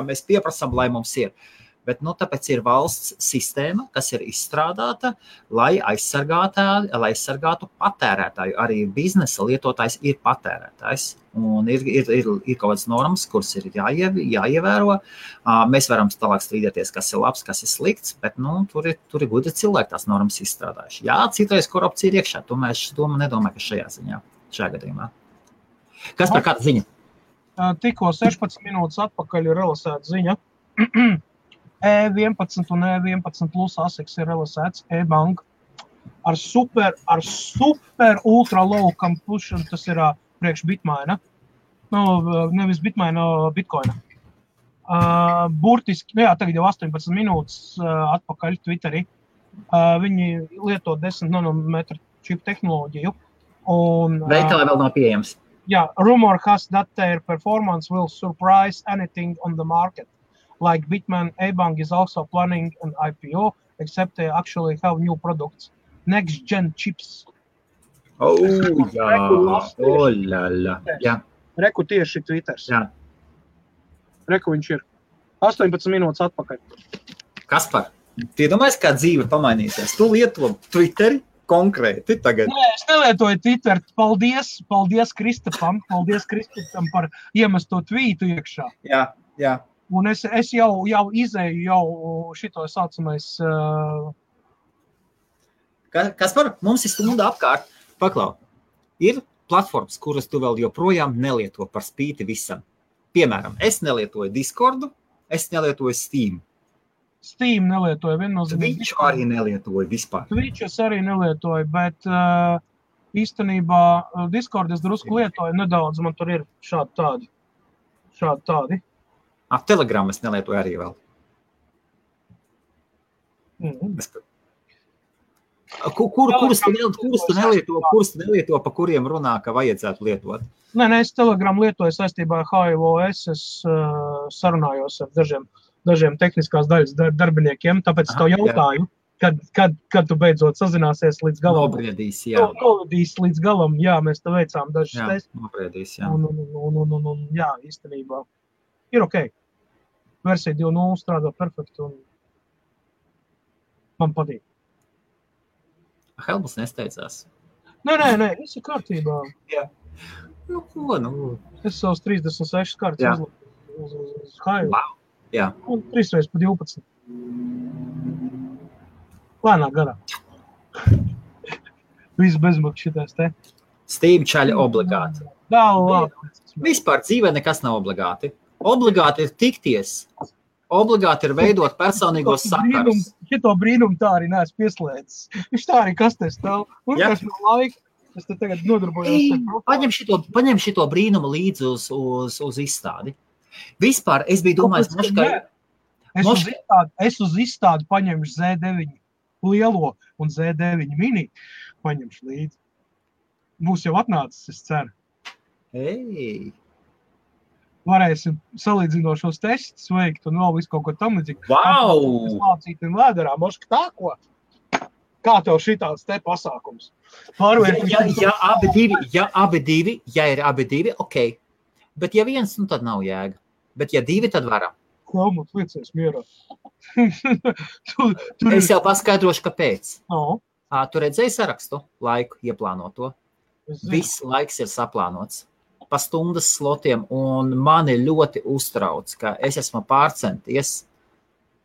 mēs pieprasām, lai mums ir. Bet, tāpēc ir valsts sistēma, kas ir izstrādāta, lai aizsargātu patērētāju. Arī biznesa lietotājs ir patērētājs. Un ir kaut kādas normas, kuras ir jāievēro. Mēs varam tālāk strīdēties, kas ir labs, kas ir slikts, bet, tur ir gudri cilvēki tās normas izstrādājuši. Jā, citreiz korupcija ir iekšā, to mēs nedomāju, ka šajā gadījumā. Kas par kāda ziņa? Tikko 16 minūtes atpakaļ ir relasēta ziņa. E11 un E11 plus ASICs ir realizēts e-bank ar super ultra low completion, tas ir priekš Bitmaina. Nevis Bitmaina, Bitcoina. Burtiski, tagad jau 18 minūtes atpakaļ Twitterī. Viņi lieto 10 nanometru čipu tehnoloģiju. Veikalā vēl nav pieejams. Rumor has that their performance will surprise anything on the market. Like Bitmain, A-Bank is also planning an IPO, except they actually have new products. Next-gen chips. Jā. Reku tieši Twitters. Jā. Reku viņš ir 18 minūtes atpakaļ. Kaspar, tu iedomājies, kā dzīve pamainīsies? Tu lieto Twitteri konkrēti tagad? Nē, es nelietoju Twitter. Paldies Kristapam. Paldies Kristapam par iemesto tvītu iekšā. Jā. Un es jau izēju šito saucamais... Kaspar, mums ir stunda apkārt. Paklau, ir platformas, kuras tu vēl joprojām nelieto par spīti visam. Piemēram, es nelietoju Discordu, es nelietoju Steam. Steam nelietoju viennozīmīgi. Twitch arī nelietoju vispār. Twitch es arī nelietoju, bet īstenībā Discord es drusku lietoju nedaudz, man tur ir šādi tādi. Telegram es nelietoju arī vēl. Kurus tu nelieto, pa kuriem runā, ka vajadzētu lietot? Nē, es Telegram lietoju saistībā ar HIOS, es sarunājos ar dažiem tehniskās daļas darbiniekiem, tāpēc es tev jautāju, kad tu beidzot sazināsies līdz galam. Nobriedīs, jā. Nobriedīs līdz galam, jā, mēs te veicām dažas testus. Jā, nobriedīs, jā. Un jā, īstenībā ir ok. Versija 2.0 strādā perfekti un man patīk. Helmuts nesteicās. Nē, viss ir kārtībā. Jā. Es savus 36 kārtas uzliku uz hailu. Wow. Jā. Un 3 reizes pa 12. Lēnā garā. Viss bezmaksas šitais te. Steam čaļa obligāti. Vispār dzīvē nekas nav obligāti. Obligāti ir tikties. Obligāti ir veidot personīgos sakarus. Šito brīnumu tā arī neesmu pieslēdzis. Viņš tā arī kastē stāv. Un kas no laika, es te tagad nodarbojos. Paņem šito brīnumu līdzi uz izstādi. Vispār es biju domājis, Es uz izstādi paņemšu Z9 lielo un Z9 mini paņemšu līdzi. Būs jau atnācis, es ceru. Varēsim salīdzinošos testus veikt un vēl visu kaut ko tam līdzīgi. Wow! Es mācīt un vēderā, moška tā ko? Kā tev šitāds te pasākums? Ja ir abi divi, ok. Bet ja viens, tad nav jēga. Bet ja divi, tad varam. Helmut, liecies mierā. Es jau paskaidrošu, kāpēc. No. Tu redzēji sarakstu laiku ieplānoto? Viss laiks ir saplānots. Pa stundas slotiem, un mani ļoti uztrauc, ka es esmu pārcenties.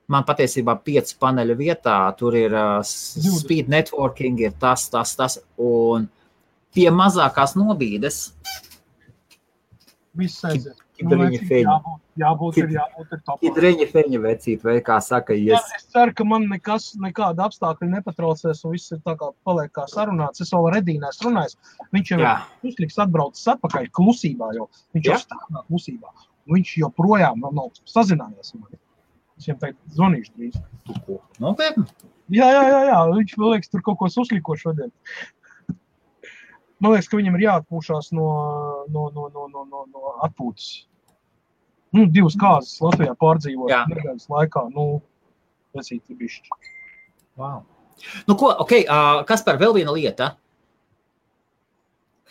Man patiesībā 5 paneļu vietā, tur ir speed networking, ir tas, un pie mazākās nobīdes. Viss aiziet. Jābūt ir topā. Kidreņa feņa vecīt, vai kā saka, es ceru, ka man nekāda apstākļa nepatraucēs, un viss ir tā kā paliek kā sarunāts. Es vēl ar Edīnēs runājis. Viņš jau uzliks atbraucis atpakaļ klusībā, jo viņš jau stāvā klusībā. Viņš joprojām nav sazinājies. Es viņam tagad zvanīšu drīz. Nopietni? Jā. Viņš vēl liekas, tur kaut ko susliko šodien. Man liekas, ka viņam ir jāatpūšās no atpūtas. 2 kāzas Latvijā pārdzīvot nedēļas laikā. Vesīti bišķi. Wow. Kaspar, vēl viena lieta.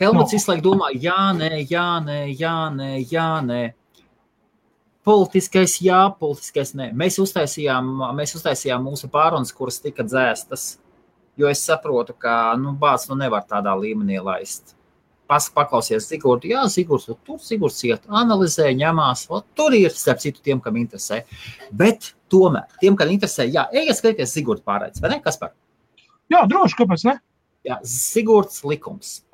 Helmuts visu laiku domā, jā, nē. Politiskais jā, politiskais nē. Mēs uztaisījām mūsu pārunas, kuras tika dzēstas. Jo es saprotu, ka bāds nevar tādā līmenī laist. Paklausies Zigurdu, Zigurds iet, analizē, ņemās, tur ir starp citu tiem, kam interesē. Bet tomēr, tiem, kam interesē, ejiet skatīties Zigurdu pārraides, vai ne, Kaspar? Jā, droši, kāpēc ne? Jā, Zigurds likums,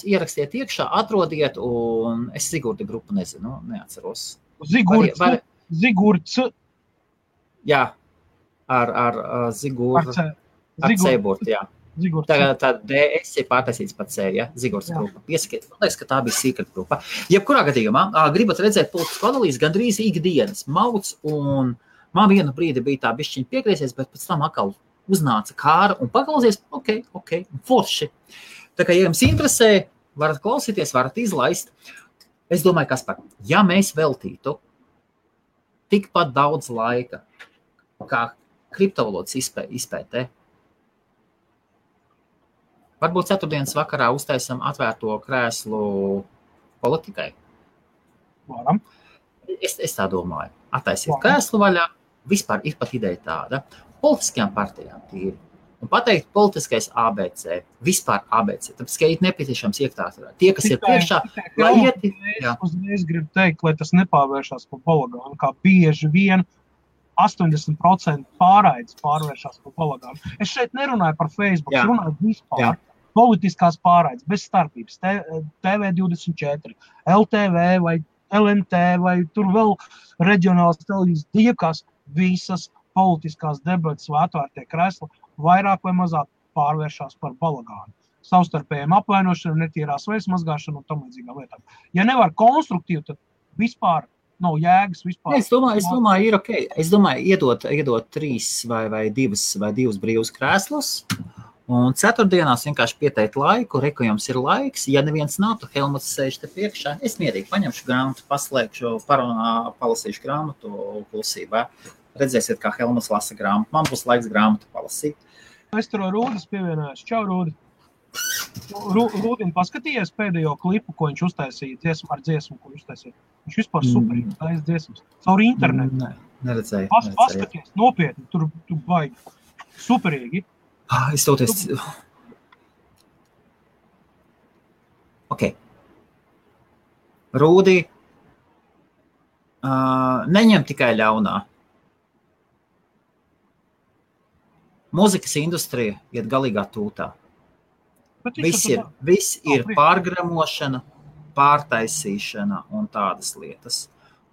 ierakstiet iekšā, atrodiet, un es Zigurda grupu nezinu, neatceros. Zigurds, Jā, ar Ziguru. Ar Ceiburtu, jā. Tā DS ir pārtaisīts pat C, ja? Zigurs grupa. Piesakiet, man liekas, ka tā bija secret grupa. Jebkurā gadījumā, gribat redzēt politisku analīzi gandrīz ikdienas mauc, un man vienu brīdi bija tā bišķiņa piegriesies, bet pēc tam atkal uznāca kāra un paklausies, ok, forši. Tā kā, ja jums interesē, varat klausīties, varat izlaist. Es domāju, Kaspar, ja mēs veltītu tikpat daudz laika, kā kriptovalodas izpētē, varbūt ceturtdienas vakarā uztaisam atvērto krēslu politikai. Varam. Es tā domāju. Attaisiet krēslu vaļā, vispār ir pat ideja tāda. Politiskajām partijām tīri. Un pateikt politiskais ABC, vispār ABC, tāpēc, ka ir nepieciešams iektārturā. Tie, kas ir priekšā, lai ieti... Es gribu teikt, lai tas nepārvēršās par balagānu, kā bieži vien 80% pārraides pārvēršās par balagānu. Es šeit nerunāju par Facebook, es runāju vispār. Politiskās pārraides, bez starpības, TV24, LTV vai LNT vai tur vēl reģionāls televīzijas, diekās visas politiskās debates vai atvērtie kresli vairāk vai mazāk pārvēršās par balagānu. Savstarpējiem apvainošanu, netīrās veids mazgāšanu un tam līdzīgām lietām. Ja nevar konstruktīvi, tad vispār nav jēgas vispār. Es domāju, ir ok. Es domāju, iedot 3 vai 2 brīvus krēslus, un ceturtdienās vienkārši pieteikt laiku, reku jums ir laiks. Ja neviens nav, tu Helmuts sēž te priekšā. Es mierīgi paņemšu grāmatu, paslēgšu, palasīšu grāmatu klusībā. Redzēsiet, kā Helmuts lasa grāmatu. Man būs laiks grāmatu palasīt. Es tur Rūdis pievienojos. Čau, Rūdi. Rūdim paskatījies pēdējo klipu, ko viņš uztaisīja ar dziesmu, ko viņš uztaisīja. Viņš vispār superīgi uztaisīja dziesmas. Caur internetu. Neredzēju. Paskaties, nopietni, tur baigi. Superīgi. Es toties... Ok. Rūdi, neņem tikai ļaunā. Mūzikas industrija iet galīgā tūtā. Viss ir pārgramošana, pārtaisīšana un tādas lietas.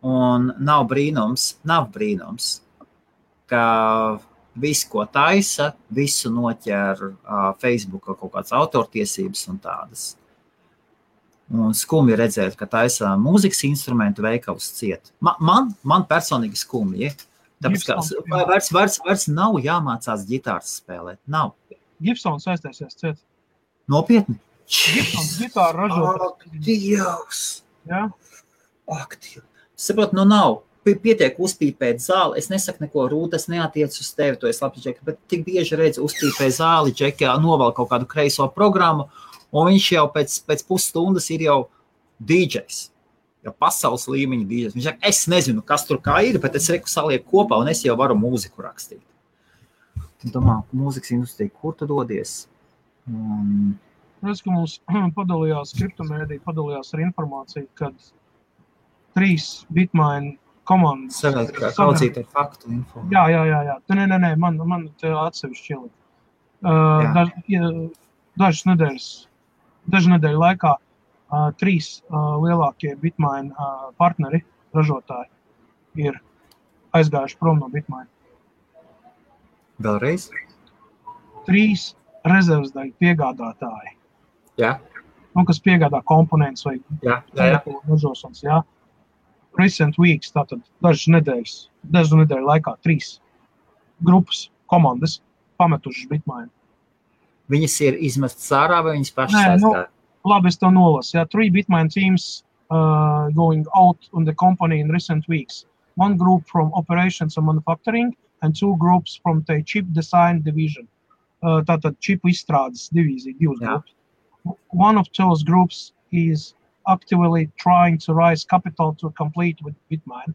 Un nav brīnums, ka visu, ko taisa, visu noķer Facebooka kaut kāds autortiesības un tādas. Un skumji redzēt, ka taisa mūzikas instrumentu veikals ciet. Man personīgi skumji. Tāpēc, ka vairs nav jāmācās ģitāras spēlēt. Nav. Gibsons aiztaisies ciet. Nopietni? Gibsons ģitāra ražot. Ak, Dievs! Jā? Ak, Dievs! Saprot, nav. Pietiek uzpīpēt zāli. Es nesaku neko, Rūta, es neatiec uz tevi, to es labi, Džeki, bet tik bieži redzu uzpīpē zāli, Džeki, novēl kaut kādu kreiso programmu, un viņš jau pēc pusstundas ir jau DJs. Jau pasaules līmeņa DJs. Viņš saka, es nezinu, kas tur kā ir, bet es reku salieku kopā, un es jau varu mūziku rakstīt. Domā, mūzikas industrija, kur tu dodies? Redz, ka mums padalījās kriptomēdija, padalījās ar informāciju, kad 3 Bitmain komandas... Kaudzīt ar faktu info. Jā. Nē, man te atsevišķi ielikt. Dažu nedēļu laikā 3 lielākie Bitmain partneri, ražotāji, ir aizgājuši prom no Bitmain. Vēlreiz? 3 rezervsdaļu piegādātāji. Jā. Kas piegādā komponents vai ražošanas, jā. Recent weeks, tātad dažu nedēļu laikā 3 grupas, komandas pametušas Bitmain. Viņas ir izmestas ārā vai viņas pašas aizgāja? Labi, es to nolasu. 3 Bitmain teams going out on the company in recent weeks. 1 group from operations and manufacturing and 2 groups from the chip design division. Tātad čipu izstrādes divīzija, 2 grupas. One of those groups is actively trying to raise capital to complete with Bitmain.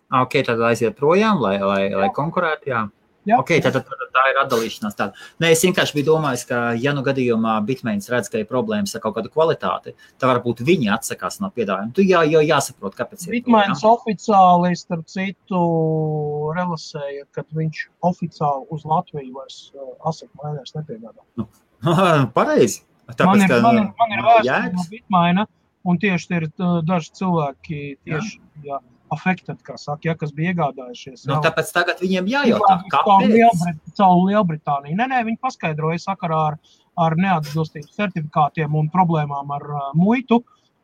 Ok, tad aiziet projām, lai konkurētu, jā. Jā. Ok, tad tā ir atdalīšanās tāda. Nē, es vienkārši biju domājis, ka ja nu gadījumā Bitmains redz, ka ir problēmas ar kaut kādu kvalitāti, tad varbūt viņi atsakās no piedāvājuma. Tu jāsaprot, kāpēc ir Bitmains oficiāli, starp citu, relasēja, kad viņš oficiāli uz Latviju vairs asakt mainēs nepiegādā. Pareizi. Man ir vēsturi no Bitmaina, un tieši ir daži cilvēki tieši affected, kā saka, kas bija iegādājušies. Tāpēc tagad viņiem jājautā, kāpēc? Caur Lielbritāniju. Nē, viņi paskaidroja sakarā ar neatbilstības certifikātiem un problēmām ar muitu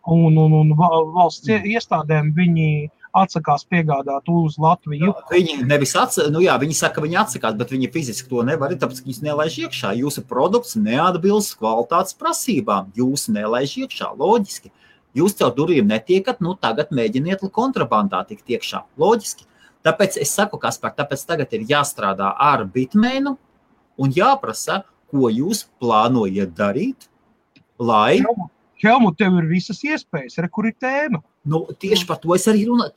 un valsts iestādēm viņi atsakās piegādāt uz Latviju. Viņi nevis viņi saka, ka viņi atsakās, bet viņi fiziski to nevar, tāpēc, ka jūs nelaiž iekšā. Jūsu produkts neatbilst kvalitātes prasībām. Jūs nelaiž iekšā, loģiski. Jūs caur durvīm netiekat, tagad mēģiniet kontrabandā tikt iekšā, loģiski. Tāpēc es saku, Kaspar, tāpēc tagad ir jāstrādā ar Bitmainu un jāprasa, ko jūs plānojat darīt, lai... Helmut, tev ir visas iespējas, kur ir tēma. Tieši par to es arī runāju.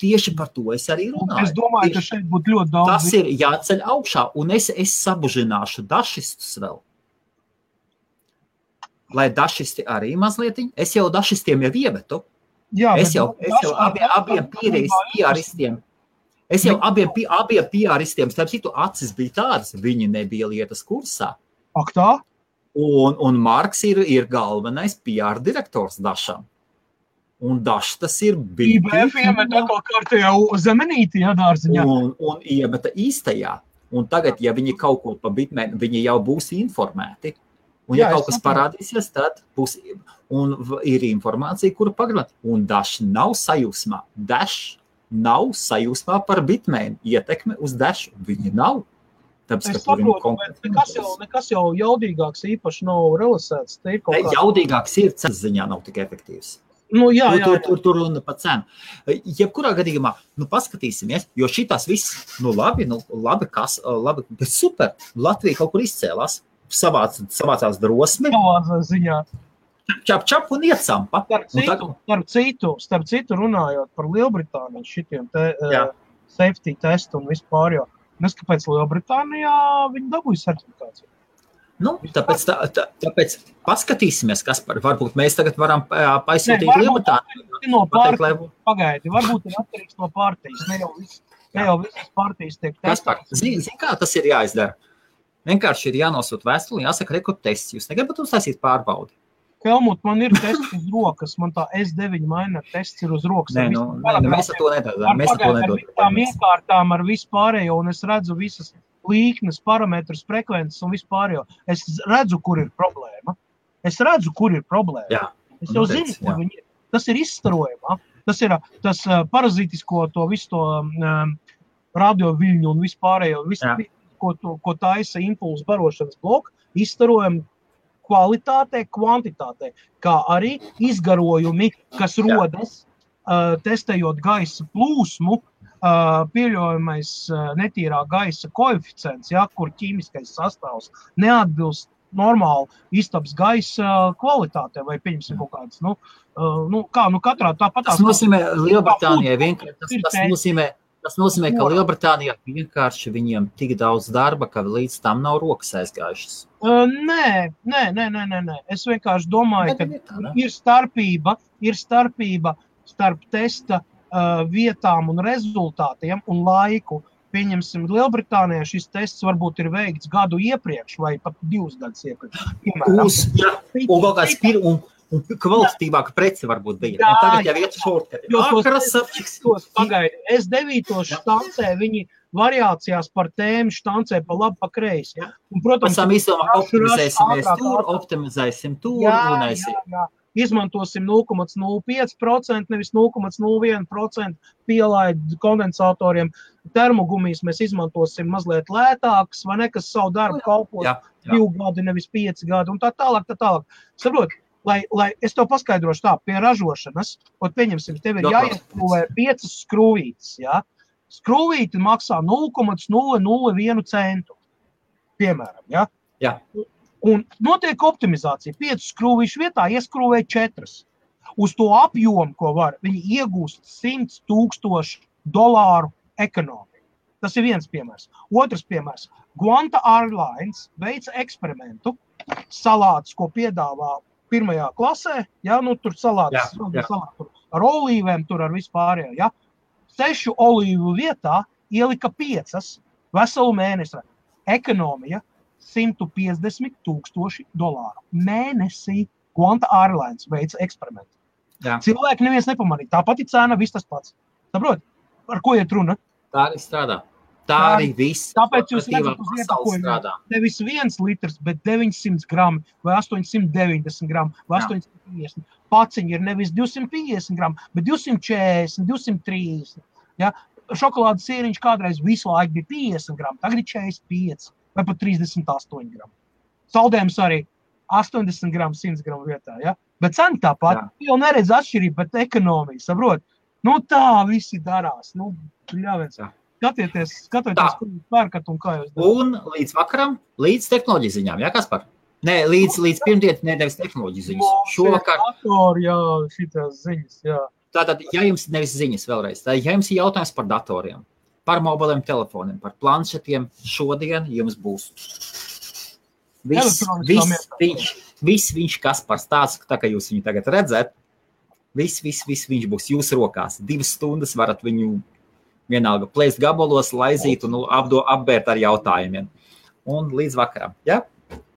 Es domāju, ka šeit būtu ļoti daudz. Tas ir jāceļ augšā, un es sabužināšu dašistus vēl. Lai dašisti arī mazliet, es jau dašistiem jau iemetu. Jā, es jau abiem PR-istiem. Es jau abiem PR-istiem, starp citu, acis bija tādas, viņi nebija lietas kursā. Ak tā? Un Marks ir galvenais PR direktors Dašam. Un Dašs tas ir IBF iemet atkal kārtējā zemenīti, dārziņā. Un iemeta īstajā. Un tagad, ja viņi kaut ko pa Bitmain, viņi jau būs informēti. Un ja kaut kas parādīsies, tad būs, un ir informācija, kuru pagarināt. Un Dašs nav sajūsmā. Dašs nav sajūsmā par Bitmain. Ietekme uz Dašu. Viņi nav. Es saprotu, bet nekas jau jaudīgāks īpaši nav realizēts. Jaudīgāks ir, cenas ziņā nav tik efektīvs. Jā. Tur runa pa cenu. Jebkurā gadījumā, paskatīsimies, jo šitās viss, labi, bet super. Latvija kaut kur izcēlās, savācās drosmi. Savācā ziņā. Čap un iecampa. Starp citu runājot par Lielbritāniju, šitiem safety testu un vispār jau. Kāpēc Lielbritānijā viņi dabūja certifikāciju? Tāpēc paskatīsimies, kas varbūt mēs tagad varam paisūtīt Lielbritāniju. Pagaidi, varbūt ir atkarīgs no partijas. Ne jau visas partijas tiek testētas. Zini, kā tas ir jāizdara? Vienkārši ir jānosūt vēstuli, jāsaka rekord tests. Jūs negribat uztaisīt pārbaudi? Helmut, man ir tests uz rokas, man tā S9 maina tests ir uz rokas. Mēs ar to nedodām. Ar tām iekārtām, ar vispārējo, un es redzu visas līknes, parametrus, frekvences un vispārējo. Es redzu, kur ir problēma. Jā. Es jau zinu, kur viņi ir. Tas ir izstarojumā. Tas ir tas parazītisko to visu to radioviļņu un vispārējo, ko taisa impulsu barošanas bloku, izstarojumu kvalitātē, kvantitātē, kā arī izgarojumi, kas rodas testējot gaisa plūsmu, pieļaujamais netīrā gaisa koeficients, kur ķīmiskais sastāvs neatbilst normāli istabas gaisa kvalitātē, vai pieņemsim kaut kādas, katrā tāpat. Tas nozīmē Lielbritānijai vienkārši, tas nozīmē, ka Lielbritānijā vienkārši viņiem tik daudz darba, ka līdz tam nav rokas aizgājušas. Nē. Es vienkārši domāju, ka ir starpība starp testa vietām un rezultātiem un laiku. Pieņemsim, Lielbritānijā šis tests varbūt ir veikts gadu iepriekš vai pat 2 gadus iepriekš. Un vēl kāds un kvalitatīvāka prece varbūt bija. Un tagad jau iet šortkati. Pagaidi, S9 štancē viņi variācijās par tēmu štancē pa labi, pa kreisi. Un, protams, optimizēsim tur, runēsim. Izmantosim 0,05%, nevis 0,01% pielaid kondensatoriem. Termogumijas mēs izmantosim mazliet lētākas, vai ne, kas savu darbu kalpos 2 gadi, nevis 5 gadi, un tā tālāk. Saprot, lai es tev paskaidrošu tā, pie ražošanas, pieņemsim, tev ir jāieskrūvē 5 skrūvītes, Skrūvīti maksā 0,001 centu, piemēram, Jā. Un notiek optimizācija. 5 skrūvīšu vietā ieskrūvē 4. Uz to apjomu, ko var, viņi iegūst $100,000 ekonomiju. Tas ir viens piemērs. Otrs piemērs. Qantas Airlines veica eksperimentu. Salātus, ko piedāvā pirmajā klasē, tur salātus ar olīvēm, tur ar vispārējo, 6 olīvu vietā ielika 5 veselu mēnesi. Ekonomija $150,000 mēnesī. Qantas Airlines veica eksperimentu. Cilvēki neviens nepamanīja. Tāpat ir cena, viss tas pats. Saprot? Par ko iet runa? Tā arī strādā. Tā arī viss. Tāpēc jūs redzat uz iepakojumu nevis 1 litrs, bet 900 grami vai 890 grami vai 850. Paciņi ir nevis 250 grami, bet 240, 230. Ja? Šokolādes sīriņš kādreiz visu laiku bija 50 grami, tagad ir 45 vai pat 38 grami. Saldējums arī 80 gramu, 100 gramu vietā. Ja? Bet cena tāpat. Jau neredz atšķirību, bet ekonomija, saprot? Nu tā visi darās. Nu, ļāviens. Skatieties, ko jūs pērkat un kā jūs darāt. Un līdz vakaram, līdz tehnoloģiju ziņām, jā, Kaspar? Nē, līdz pirmdienu nevis tehnoloģiju ziņas. Šovakar. Jā, šitās ziņas, jā. Tātad, ja jums nevis ziņas vēlreiz, tad ja jums ir jautājums par datoriem, par mobiliem telefoniem, par planšetiem, šodien jums būs viss viņš Kaspars tāds, tā kā jūs viņu tagad redzat, viss viņš būs jūsu rokās. 2 stundas varat viņu vienalga plēst gabalos, laizīt un apbērt ar jautājumiem. Un līdz vakaram, ja?